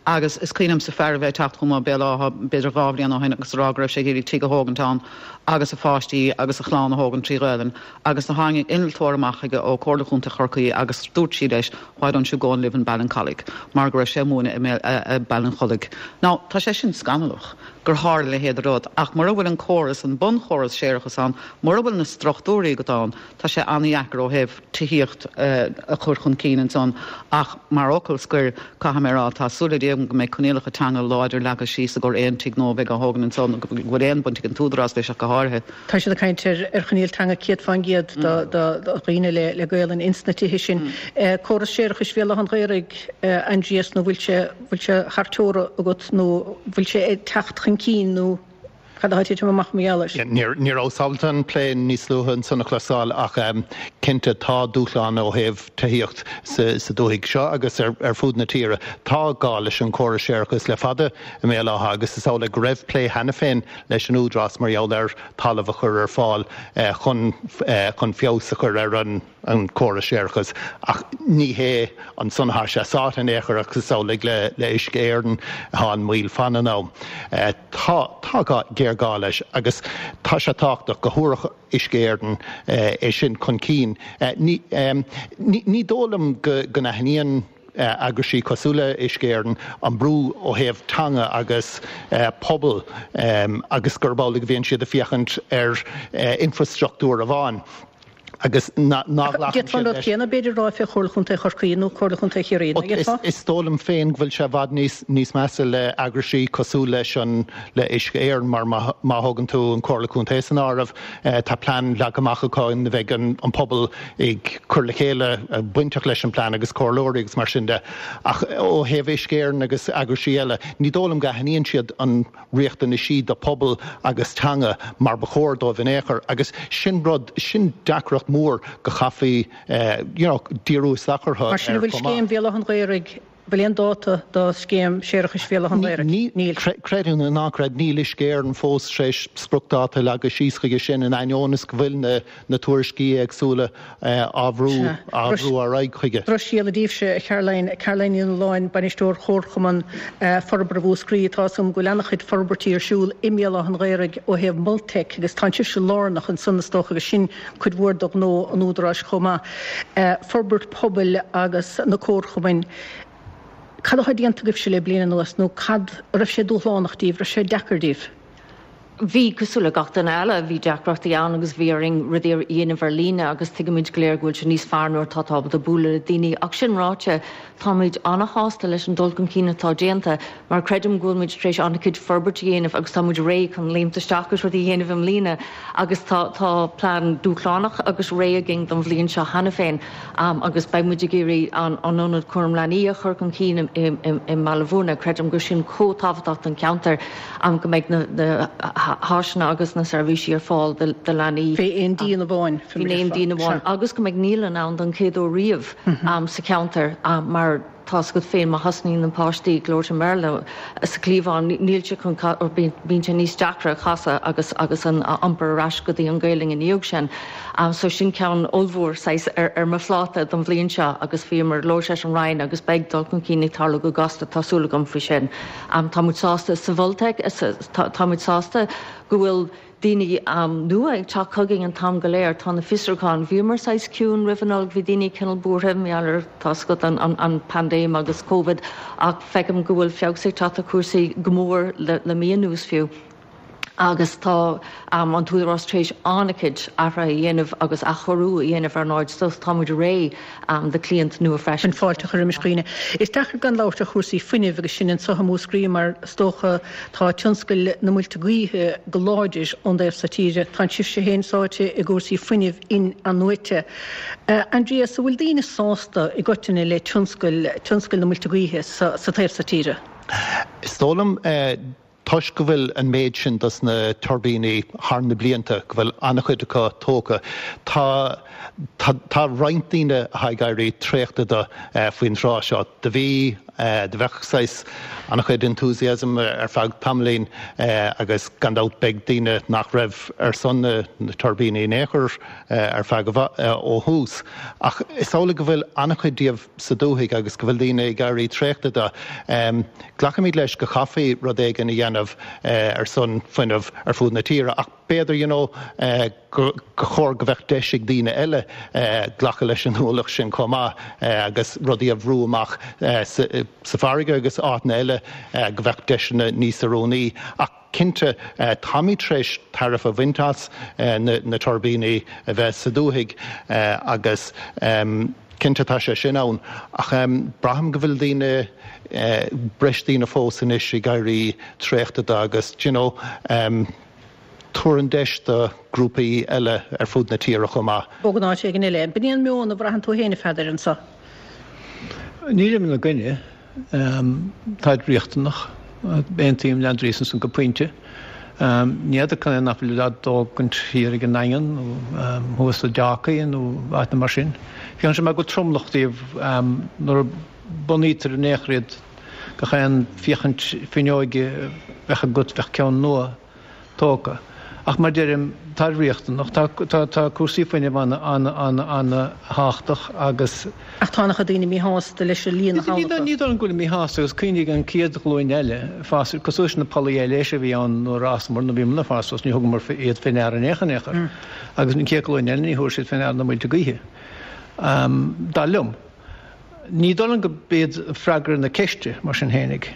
Agus is cuimhin liomsa fear a bheith ag teacht chugam ó Béal Átha b'fhéidir 2 bhliain ó shin agus a rá go raibh sé ag iarraidh tigh a thógaint ann agus a pháistí agus a chlann a thógaint trí Ghaelainn agus do tháinig innealtóir amach chuige ó Comhairle Chontae Chorcaí agus dúirt sí leis why don't you go and live in Ballincollig mar go raibh sé ag múineadh i Ballincollig. Now tá sé sin scannalach gur tharla a leithéid de rud ach mura bhfuil an córas, an bunchóras séarachais ann, mura bhfuil na struchtúirí agat ann, tá sé an-dheacair ó thaobh tithíocht a chur chun cinn ansan ach mar fhocal scoir caithfidh mé a rá tá súil le Dia agam go mbeidh coinníollacha teanga láidir leagtha síos i gcomhair aon tigh nua a bheidh á thógaint ansan go bhfuil aon bhaint ag an t-údarás leis ach go háirithe. Tá siad ag caint ar choinníoll teanga 100% do dhaoine le Gaolainn ins na tithe sin. Córas séarachais Bhéal Átha an Ghaorthaidh, Aindrias, nó bhfuil sé, bhfuil sé thar teora agat nó bhfuil sé ag teacht chun cinn nó cad atá ag titim amach mar gheall air? Ní rabhas ábalta an plé níos luaithe ansan a chloisteáil ach cinnte tá dúshlán ó thaobh tithíocht sa dúthaigh seo agus ar fud na tíre. Tá gá leis an chóras séarachais le fada i mBéal Átha agus is amhlaidh go raibh plé cheana féin leis an Údarás mar gheall ar talamh a chur ar fáil chun chun feabhas a chur ar an an córas séarachais. Ach ní hé ansan atá sé sáite in aon chor agus is amhlaidh le le Uisce Éireann atá an mhoill fan an am. Tá tá gá géarghá leis agus tá sé tábhachtach go thabharfadh Uisce Éireann é sin chun cinn. Ní ní dóigh liom go go n-aithníonn eagraisí cosúil le Uisce Éireann an brú ó thaobh teanga agus pobal agus gurb amhlaidh a bhíonn siad ag féachaint ar infrastruchtúr amháin. Agus ná glacann siad leis. D'fhéadfá an rud céanna, b'fhéidir, a rá fé Chomhairle Chontae Chorcaí nó Comhairle Chontae Chiarraí, nach bhféadfá? Is dóigh liom féin go bhfuil sé i bhfad níos measa le eagraisí cosúil leis an, le Uisce Éireann mar má thógann tú an Comhairle Contae san áireamh, tá plean leagtha amach acu ina bheidh an pobal ag cur le chéile, bainteach leis an plean agus comhairleoirí agus mar sin de. Ach ó thaobh Uisce Éireann agus eagraisí eile, ní dóigh liom go aithníonn siad an riachtanaisí do pobal agus teanga mar ba chóir dóibh in aon chor agus sin rud, sin deacracht mhór go chaithfí you know díriú isteach orthu Mar sin an bhfuil scéim Bhéal Átha an Ghaorthaidh, bhfuil aon dáta do scéim séarachais Bhéal Átha an Ghaorthaidh? Níl. Creid é nó ná creid, níl Uisce Éireann fós tar éis spriocdáta a leagadh síos chuige sin in ainneoin is go bhfuil na na tuairiscí éagsúla á bhrú á bhrú ar aghaidh chuige. Drochscéala daoibhse, a Charoline, Caroline Ní Nualláin, Bainisteoir Chomharchumann Forbartha Mhúscraí. Tá 'fhios agam go bhfuil an-chuid forbairtí ar siúl i mBéal Átha an Ghaorthaidh ó thaobh Multec agus tánn sibhse lárnach ansan is dócha agus sin cuid mhór de ghnó an Údaráis chomh maith. Forbairt pobail agus na comharchumainn. Cad atá déanta agaibhse le bliain anuas nó cad, raibh sé dúshlánach daoibh, raibh sé deacair daoibh? Bhí, cosúil le gach duine eile, bhí deacrachtaí ann agus bhí orainn rudaí a dhéanamh ar líne agus tuigimid go léir go bhfuil sé níos fearr nuair atá tú ábalta bualadh le daoine. Ach sin ráite, táimid an-shásta leis an dul chun cinn atá déanta mar creidim go bhfuil muid tar éis an-chuid forbairt a dhéanamh agus tá muid réidh chun léimt isteach agus rudaí a dhéanamh i mbliana agus tá tá plean dúshlánach agus réidh againn don bhliain seo cheana féin agus beidh muid ag iarraidh an Ionad Cúram Leanaí a chur chun cinn i mBaile Bhúirne. Creidim gur sin chomh tábhachtach don cheantar. go mbeidh na háiseanna agus na seirbhísí ar fáil do leanaí. Fé aon díon amháin. Fé aon díon amháin agus go mbeidh naíolann ann don chéad uair riamh sa cheantar mar tá 's agat féin má thosnaíonn na páistí ag labhairt i mBéarla sa chliabhán níl sé chun bíonn sé níos deacra casadh agus agus an iompar ar ais go dtí an Ghaelainn ina dhiaidh sin. So sin ceann ollmhór saghas ar ar mo phláta don bhliain seo agus bhíomar ag labhairt leis an Roinn agus beidh dul chun cinn ag tarlú go gasta tá súil agam faoi sin. Tá muid sásta sa Mhultec, tá muid sásta go bhfuil daoine nua ag teacht chugainn an t-am go léir. Tá na fiosrúcháin, bhíomar saghas ciúin roimh an Nollaig, bhí daoine cineál buartha mar gheall ar, tá 's agat, an paindéim agus Covid ach feicim go bhfuil feabhas ag teacht ar chúrsaí go mór le mí anuas fiú. agus tá an tÚdarás tar éis an-chuid athruithe a dhéanamh agus athchóiriú a dhéanamh ar an áit so tá muid réidh do chliaint nua freisin. Chun fáilte a chur roimis dhaoine. Is deacair gan labhairt ar chúrsaí fuinnimh agus sinn anseo i Múscraí mar is dócha tá tionscail na muilte gaoithe go láidir ón dtaobh so tíre. Tánn sibhse féin sáite i gcúrsaí fuinnimh in-athnuaite. Aindrias, an bhfuil daoine sásta i gcoitinne le tionscail, tionscail na muilte gaoithe sa taobh so tíre? Is dóigh liom Toisc go bhfuil an méid sin dos na tuirbíní thar na blianta, go bhfuil an-chuid acu tógtha, tá tá tá roinnt daoine atá ag éirí traochta de faoin tráth seo. Do bhí, do bheadh saghas an-chuid enthusiasm ar feadh tamaillín agus gan dabht beidh daoine nach raibh ar son na tuirbíní in aon chor ar feadh ó thús. Ach is amhlaidh go bhfuil an-chuid díobh sa dúthaigh agus go bhfuil daoine ag éirí traochta de. Glacaimid leis go chaithfí rud éigin a dhéanamh ar son fuinneamh ar fud na tíre ach b'fhéidir you know gur chóir go bheadh deis ag daoine eile glacadh leis an ualach sin chomh maith agus rudaí a bhrú amach sa bhfarraige agus áiteanna eile go bheadh deiseanna níos oiriúnaí. Ach cinnte táimid tar éis tairbhe a bhaint as na tuirbíní a bheith sa dúthaigh agus Cinnte tá sé sin ann, ach braithim go bhfuil daoine, breis daoine fós anois ag éirí traochta de agus d'you know, tabhair an deis do grúpaí eile ar fud na tíre chomh maith. Bogadh in áit éigin eile. B'in é an meon a bhraitheann tú féin, a Pheadair, anseo? Nílim ina gcoinne. Táid riachtanach. Aontaím le Aindrias ansan go pointe. Ní fheadar cad é nach bhfuil á dtógaint thiar ag an nDaingean nó thuas i dTeácaí nó áiteanna mar sin. Féachann sé mar go bhfuil tromlach díobh nuair a bunaítear in aon chor iad, gach aon féachaint fuinneoige a bheadh agat bheadh ceann nua. tógtha. Ach mar deirim, táid riachtanach. Tá, tá, tá cúrsaí fuinnimh ana, ana, ana, ana thábhachtach agus. Ach tá an-chuid daoine míshásta leis an líon atá acu. Ní dóigh liom go bhfuil míshásta agus cuimhnigh an chéad ghlúin eile, fás, cosúil leis na pollaí aibhléise a bhí ann nuair a fhásamar, nuair a bhíomar ag fás suas, ní thugamar iad fé ndeara in aon chor, in aon chor. Agus an chéad ghlúin eile, ní thabharfaidh siad fé ndeara na muilte gaoithe. Dar liom. Ní dóigh liom go b'iad freagra na ceiste, mar sin fhéinig,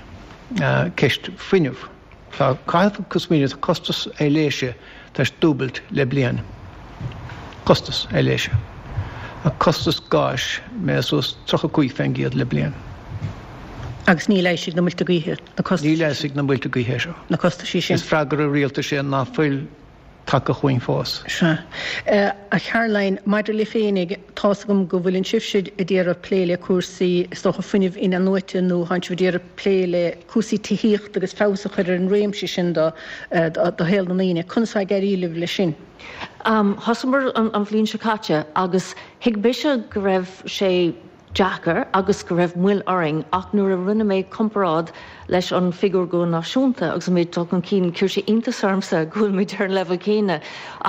ceist fuinnimh. Tá, caithfidh tú smaoineamh, tá costas aibhléise tar éis dúbailt le bliain. Costas ar leith seo. Tá costas gáis méadaithe suas 35% le bliain. Agus níl a fhios ag na muilte gaoithe na costais. Níl a fhios ag na muilte gaoithe é seo. Na costaisí sin. Is freagra rialtais é ná fuil tagtha chugainn fós. Sea. A Charoline, maidir libh féinig, tá's agam go bhfuileann sibhse ag iarraidh plé le cúrsaí, is dócha, fuinnimh in-athnuaite nó tánn sibh ag iarraidh plé le cúrsaí tithíochta agus feabhas a chur ar an réimse sin do do shaol na ndaoine. Conas atá ag éirí libh leis sin? Thosaíomar an bhliain seo caite agus thuig mise go raibh sé deacair agus go raibh moill orainn ach nuair a rinne mé comparáid leis an figiúr go náisiúnta agus an méid dul chun cinn, chuir sé iontas ormsa go bhfuil muid ar an leibhéal céanna.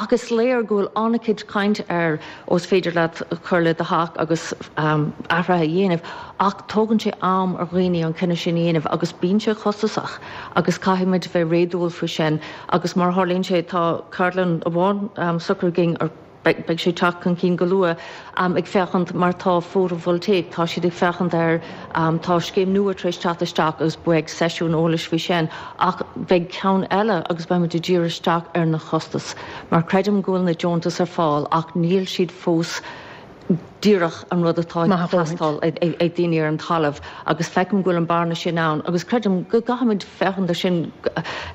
Ach is léir go bhfuil an-chuid caint ar ó is féidir leat cur le do theach agus athruithe a dhéanamh ach tógann sé am ar dhaoine an cinneadh sin a dhéanamh agus bíonn sé costasach agus caithfidh muid bheith réadúil faoi sin agus mar a tharlaíonn sé tá ceardlann amháin socraithe againn ar Beidh sé ag teacht chun cinn go luath, ag féachaint mar tá photovoltaic, tá siad ag féachaint ar, tá scéim nua tar éis teacht isteach agus beidh seisiún eolais faoi sin ach beidh ceann eile agus beidh muid ag díriú isteach ar na costais mar creidim go bhfuil na deontais ar fáil ach níl siad fós díreach an rud atá ag teastáil ag daoine ar an talamh agus feicim go bhfuil an bearna sin ann agus creidim go gcaithfimid féachaint ar sin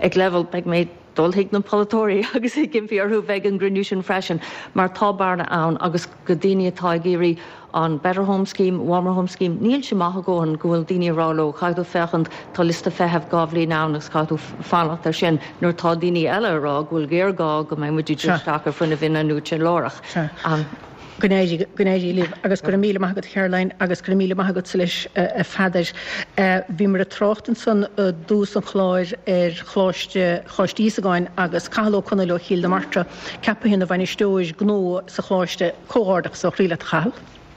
ag leibhéal, beidh mé. dul chuig na polaiteoirí agus ag impí orthu bheith ag an gcruinniú sin freisin mar tá bearna ann agus go daoine atá ag iarraidh an Better Home Scheme, Warmer Home Scheme, níl sé maith a dhóthain go bhfuil daoine ag rá leo caithfidh tú féachaint, tá liosta feithimh 2 bhliain ann agus caithfidh tú fanacht air sin nuair atá daoine eile ag rá go bhfuil géarghá go mbeidh muid ag dul isteach ar fuinneamh in-athnuaite láithreach. Go n-éirí, go n-éirí libh agus go raibh míle maith agat a Charoline agus go raibh míle maith agatsa leis a Pheadair. Bhíomar ag trácht ansan i dtús an chláir ar Choláiste, Choláiste Íosagáin agus Cathal Ó Conaill ó Chill na Martra ceaptha ina bhainisteoir gnó sa Choláiste. Comhghairdeachas ó chroí leat a Chathail.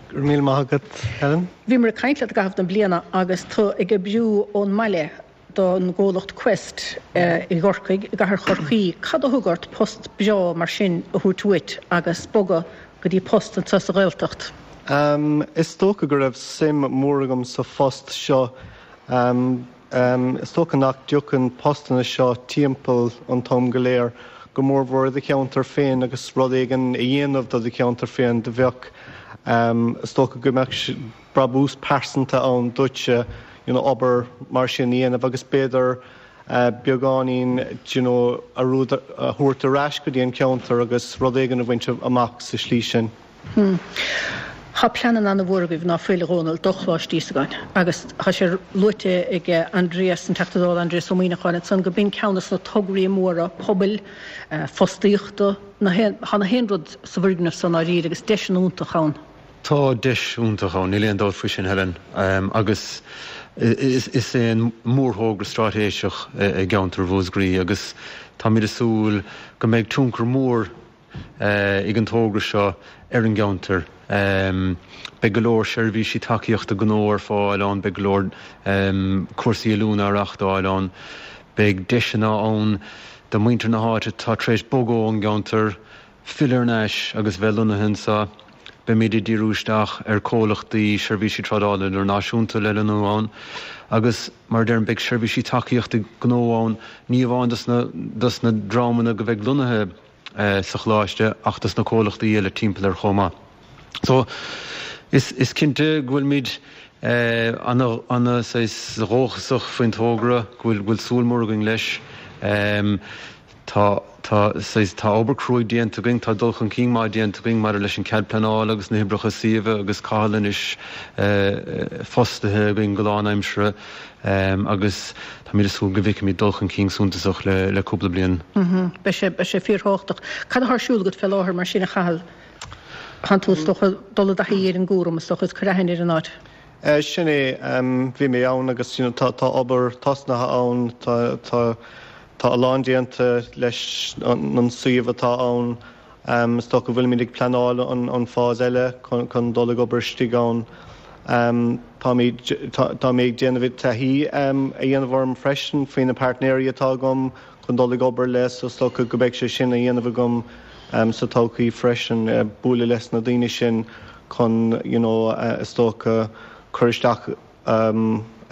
Go raibh míle maith agat Helen. Bhíomar ag caint leat i gcaitheamh na bliana agus tú ag oibriú ón mbaile. don gcomhlacht Quest i gCorcaigh, i gcathair Chorcaí. Cad a thug ort post breá mar sin a thabhairt uait agus bogadh go dtí post anseo sa Ghaeltacht? Is dócha go raibh suim mhór agam sa phost seo. Is dócha nach dtiocfainn postanna seo timpeall an t-am go léir, go mórmhór i do cheantar féin agus rud éigin a dhéanamh do do cheantar féin. Do bheadh, is dócha go mbeadh brabús pearsanta ann duitse you know obair mar sin a dhéanamh agus b'fhéidir beagáinín do you know a rud a thabhairt ar ais go dtí an ceantar agus rud éigin a bhaint amach sa slí sin. Hmm. Tá pleananna an-mhór agaibh ná fuil, a Dhónaill, do Choláiste Íosagáin agus tá sé luaite ag Aindrias, an Teachta Dála Aindrias Ó Muimhneacháin ansan go b'in ceann de na tograí móra pobail, fostaíochta, na haon, tá na haon rud sa bhfoirgneamh so i ndáiríre agus deiseanna iontach ann. Tá deis iontach ann, níl aon dabht faoi sin, Helen, agus is é an mórthógra straitéiseach i gceantar Mhúscraí agus táimid ag súil go mbeidh tionchar mór ag an togra seo ar an gceantar. Beidh go leor seirbhísí tacaíochta gnó ar fáil ann, beidh go leor cúrsaí oiliúna á reáchtáil ann, beidh deiseanna ann do mhuintir na háite atá tar éis bogadh ón gceantar, filleadh thar n-ais agus bheith lonnaithe anseo. Beimid ag díriú isteach ar comhlachtaí seirbhísí trádála idirnáisiúnta le lonnú ann agus, mar a deirim, beidh seirbhísí tacaíochta gnó ann, ní amháin dos na dos na dreamanna go bheidh lonnaithe sa choláiste ach dos na comhlachtaí eile timpeall air chomh maith. So, is is cinnte go bhfuilimid ana ana saghas dhóchasach faoin togra, go bhfuil go bhfuil súil mór againn leis. Tá, tá, saghas, tá obair cruaidh déanta againn, tá dul chun cinn maith déanta againn maidir leis an cead pleanála agus na hoibreacha suíomha agus Cathal anois fostaithe againn go lánaimseartha agus táimid ag súil go bhfeicfimid dul chun cinn suntasach le, le cúpla bliain. Beidh sé, beidh sé fíorthábhachtach. Cad atá ar siúl agat fé láthair mar sin a Chathail? Tánn tú is dócha dul i dtaithí ar an gcúram is dócha is cur aithne ar an áit. Sin é, bhí mé ann agus you know tá, tá obair tosnaithe ann, tá, tá, Tá a lán déanta leis an suíomh atá ann. Is dócha go bhfuilimid ag pleanáil an phase eile chun dul ag obair istigh ann. Táimid, tá mé ag déanamh taithí a dhéanamh orm freisin faoi na pairtnéirí atá agam chun dul ag obair le so is dócha go mbeidh sé sin a dhéanamh agam sa todhchaí freisin, bualadh leis na daoine sin chun you know is dócha cur isteach.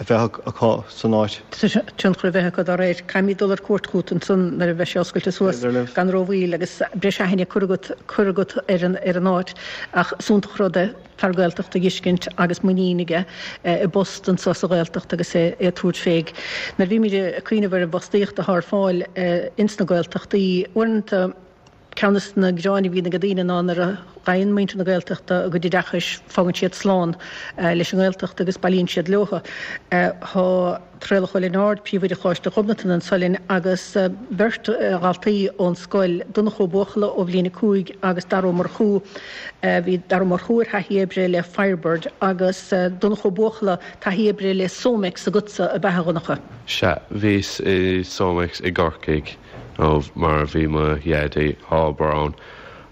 a bheith acu san áit. Tionchar a bheith acu dá réir. Caithfimid dul ar cuairt chugat ansan nuair a bheidh sé oscailte suas gan rómhoill agus breis aithne curtha agat curtha agat ar an ar an áit. Ach is iontach rud é fear Gaeltachta a dh'fheiscint agus muinín aige i bpost anso sa Ghaeltacht agus é ag tabhairt fé. Nuair a bhímid ag cuimhneamh ar an bhfostaíocht atá ar fáil ins na Gaeltachtaí, uaireanta, Ceann des na gearáin a bhíonn ag daoine ná nuair a fhaigheann muintir na Gaeltachta a gcuid oideachais fágann siad slán leis an nGaeltacht agus bailíonn siad leothu. Tá Traolach Ó Lionáird, Príomhoide Choláiste Ghobnatan anso linn agus beirt dhaltaí ón scoil, Donncha Ó Buachalla ó bhliain 5 agus Dara Ó Murchú. Bhí Dara Ó Murchú ar thaithí oibre le Firebird agus Donncha Ó Buachalla taithí oibre le Somex agatsa, ab ea a Dhonncha? Sea, bhíos i Somex i gCorcaigh. nó mar bhí mo dhaidí ag obair ann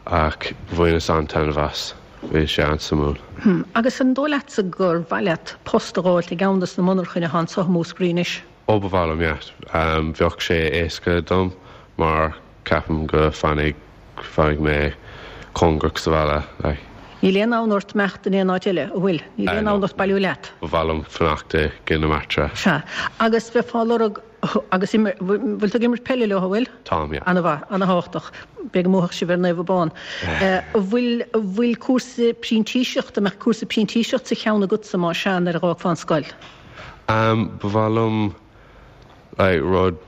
ach bhaineas an-taitneamh as, bhí sé an-suimiúil. Hm, agus an dóigh leatsa gur mhaith leat post a dh'fháilt i gceann des na monarchain atá anso i Múscraí anois? Ó ba mhaith liom, yeah. Bheadh sé éasca dom mar ceapaim go fanfaidh, fanfaidh mé cóngarach sa bhaile, like. Níl aon fhonn ort imeacht in aon áit eile, an bhfuil? Níl aon fhonn ort bailiú leat? Ba mhaith liom fanacht i gCill na Martra. Sea. Agus bheifeá ag lorg Agus bhfuil tú ag imirt peile leo, an bhfuil? Táim, yeah. Ana-mhaith, ana-thábhachtach. Beidh go mbuafadh sibh ar Naomh Abán. An bhfuil, an bhfuil cúrsa printíseachta, an mbeadh cúrsa printíseachta sa cheann agatsa más ea nuair a dh'fhágfá an scoil? Ba mhaith liom like rud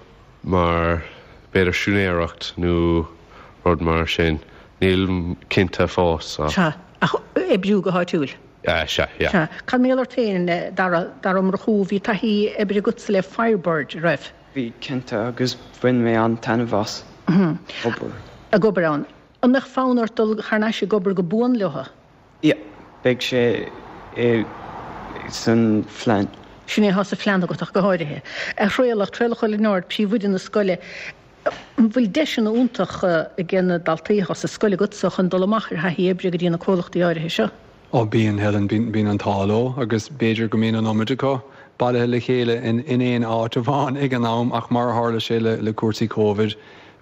mar b'fhéidir siúinéireacht nó rud mar sin. Nílim cinnte fós so. Sea, ach oibriú go háitiúil? Sea, yeah. Sea. Cad mar gheall ort féin, Dara, Dara Ó Murchú, bhí taithí oibre agatsa le Firebird, an raibh? Bhí, cinnte, agus bhain mé an-taitneamh as obair. Ag obair ann. An mbeadh fonn ort dul thar n-ais ag obair go buan leo? Yeah, beidh sé i san phlean. Sin é atá sa phlean agat ach go háirithe. A Thraolach, Traolach Ó Lionáird, príomhoide na scoile, An bhfuil deiseanna iontacha ag na daltaí atá sa scoil agatsa chun dul amach ar thaithí oibre go dtí na comhlachtaí áirithe seo? Ó bíonn, Helen, bíonn an t-ádh leo agus b'fhéidir go mbíonn an iomad acu bailithe le chéile in aon áit amháin ag an am ach mar a tharla sé le cúrsaí Covid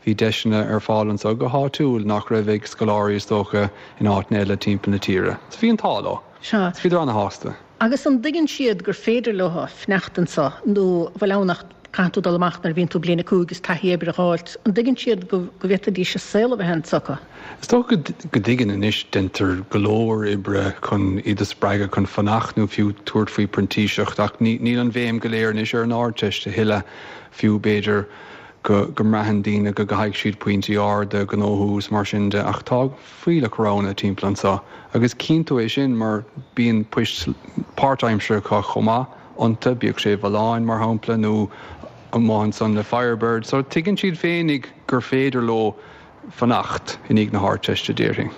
bhí deiseanna ar fáil anseo go háitiúil nach raibh ag scoláirí is dócha in áiteanna eile timpeall na tíre. So bhí an t-ádh leo. Sea. So bhíodar ana-shásta. Agus an dtuigeann siad gur féidir leo fanacht anseo nó an bhfuil ann ach caithfidh tú dul amach nuair a bhíonn tú bliain 5 is taithí oibre a dh'fháilt, an dtuigeann siad go bhféadfaidís a saol a bheith anseo acu? Is dócha go dtuigeann anois, deintear go leor oibre chun iad a spreagadh chun fanacht nó fiú tabhairt faoi printíseacht ach níl an bhéim go léir anois ar an Ardteist a thuilleadh, fiú b'fhéidir go mbraitheann daoine go gcaithfidh siad pointí arda a ghnóthú is mar sin de ach tá fuílleach roghanna timpeall anseo agus cíonn tú é sin mar bíonn poist páirtaimseartha acu chomh maith iontu, bíodh sé i Folláin mar shampla nó amuigh ansan le Firebird. So tuigeann siad féinig gur féidir leo fanacht i ndiaidh na hArdteiste, déarfainn.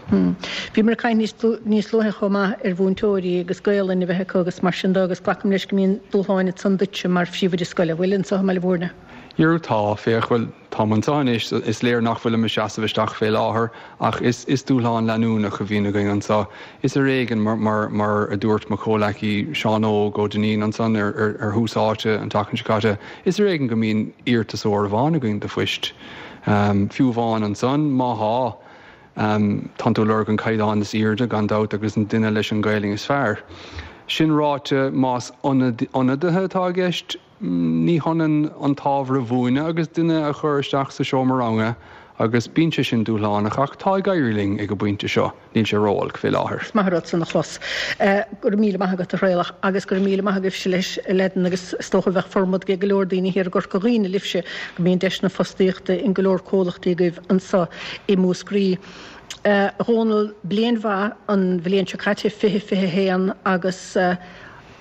Bhíomar ag caint níos luaithe chomh maith ar mhúinteoirí agus Gaolainn a bheith acu agus mar sin de agus glacaim leis go mbíonn dúshláin ansan duitse mar phríomhoide scoile, an bhfuil, anseo i mBaile Bhúirne? Jerú tá, féach, bhuel, Táim anseo anois, is léir nach bhfuilim ag seasamh isteach fé láthair, ach is dúshlán leanúnach a bhíonn againn anseo. Is ar éigean, mar a dúirt mo chomhleacaí Seán Óg Ó Duinnín ansan ar Thús Áite an tseachtain seo caite, is ar éigean go mbíonn iarratasóir amháin againn do phoist. Fiú amháin ansan, má thá, tánn tú ag lorg an caighdeán is aoirde, gan dabht, agus an duine leis an Ghaelainn is fearr. Sin ráite, más ionadaithe atá i gceist, Ní hionann an t-ábhar a mhúineadh agus duine a chur isteach sa seomra ranga agus bíonn sé sin dúshlánach ach tá ag éirí linn ag an bpointe seo, níl sé ró-olc fé láthair. Is maith an rud san a chlos. Go raibh míle maith agat a Thraolach agus go raibh míle maith agaibhse leis a Leaideanna agus is dócha bheadh formad ag go leor daoine thiar i gCorca Dhuibhne libhse go mbíonn deiseanna fostaíochta in go leor comhlachtaí agaibh anso i Múscraí. A Dhónaill, bliain mhaith an bhliain seo caite, 2021 agus.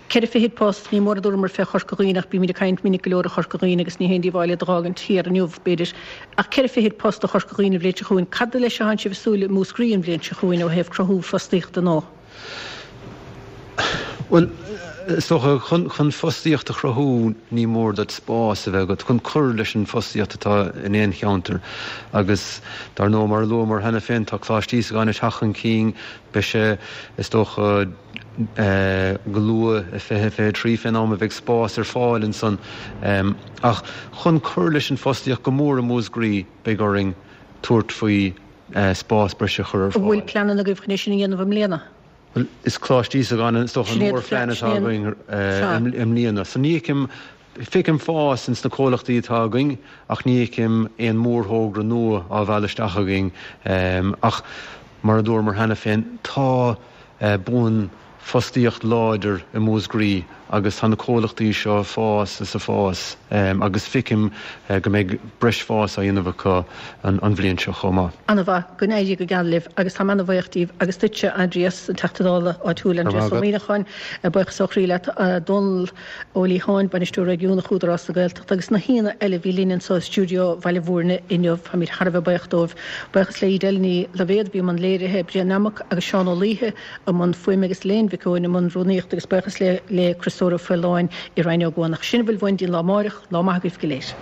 24 post, ní mór a dúramar fé Chorca Dhuibhne ach bímid ag caint minic go leor ar Chorca Dhuibhne agus ní haon díobháil iad a dh'fhágaint thiar inniu, b'fhéidir. Ach 4 fichid post do Chorca Dhuibhne an bhliain seo chugainn. Cad leis atánn sibh ag súil i Múscraí an bhliain seo chugainn ó thaobh cruthú fostaíochta nó? Bhuel, is dócha, chun fostaíocht a chruthú ní mór duit spás a bheith agat chun cur leis an bhfostaíocht atá in aon cheantar agus dar ndóigh mar a luamar cheana féin tá Coláiste Íosagáin ag teacht chun cinn, beidh sé, is dócha, go luath i 2023 fén am a bheidh spás ar fáil ansan. Ach chun cur leis an bhfostaíocht go mór i Múscraí beidh orainn tabhairt faoi spás breise a chur ar An bhfuil fáil. pleananna agaibh chun é sin a dhéanamh i mbliana? Bhuel, is Coláiste Íosagáin is dócha an mórphlean atá againn i mbliana. So ní fheicim, feicim fás ins na comhlachtaí atá againn ach ní fheicim aon mhórthógra nua á mhealladh isteach againn. Ach mar a dúramar cheana féin, tá buan fostaíocht láidir i Múscraí agus tá na comhlachtaí seo ag fás is ag fás agus feicim go mbeidh breis fás á dhéanamh acu an bhliain seo chomh maith. Ana-mhaith, go n-éirí go geal libh agus táim ana-bhuíoch díbh agus duitse Aindrias, an Teachta Dála áitiúil Aindrias Ó Muimhneacháin, buíochas ó chroí leat Dónal Ó Liatháin, Bainisteoir Réigiúnach Údarás na Gaeltachta agus na haíonna eile a bhí linn anseo i stiúideo Bhaile Bhúirne inniu, táimid thar a bheith buíoch dóibh. Buíochas le Edel Ní Loibhéad a bhí i mbun léirithe, Brian Nammock agus Seán Ó Laoithe, i mbun fuaime agus Elaine Mhic Eoin i mbun rúnaíochta agus buíochas le le Criostóir Ó Faoláin i Rinn Ó gCuanach. Sin a bhfuil uainn go dtí an lá amáireach, lá maith agaibh go léir.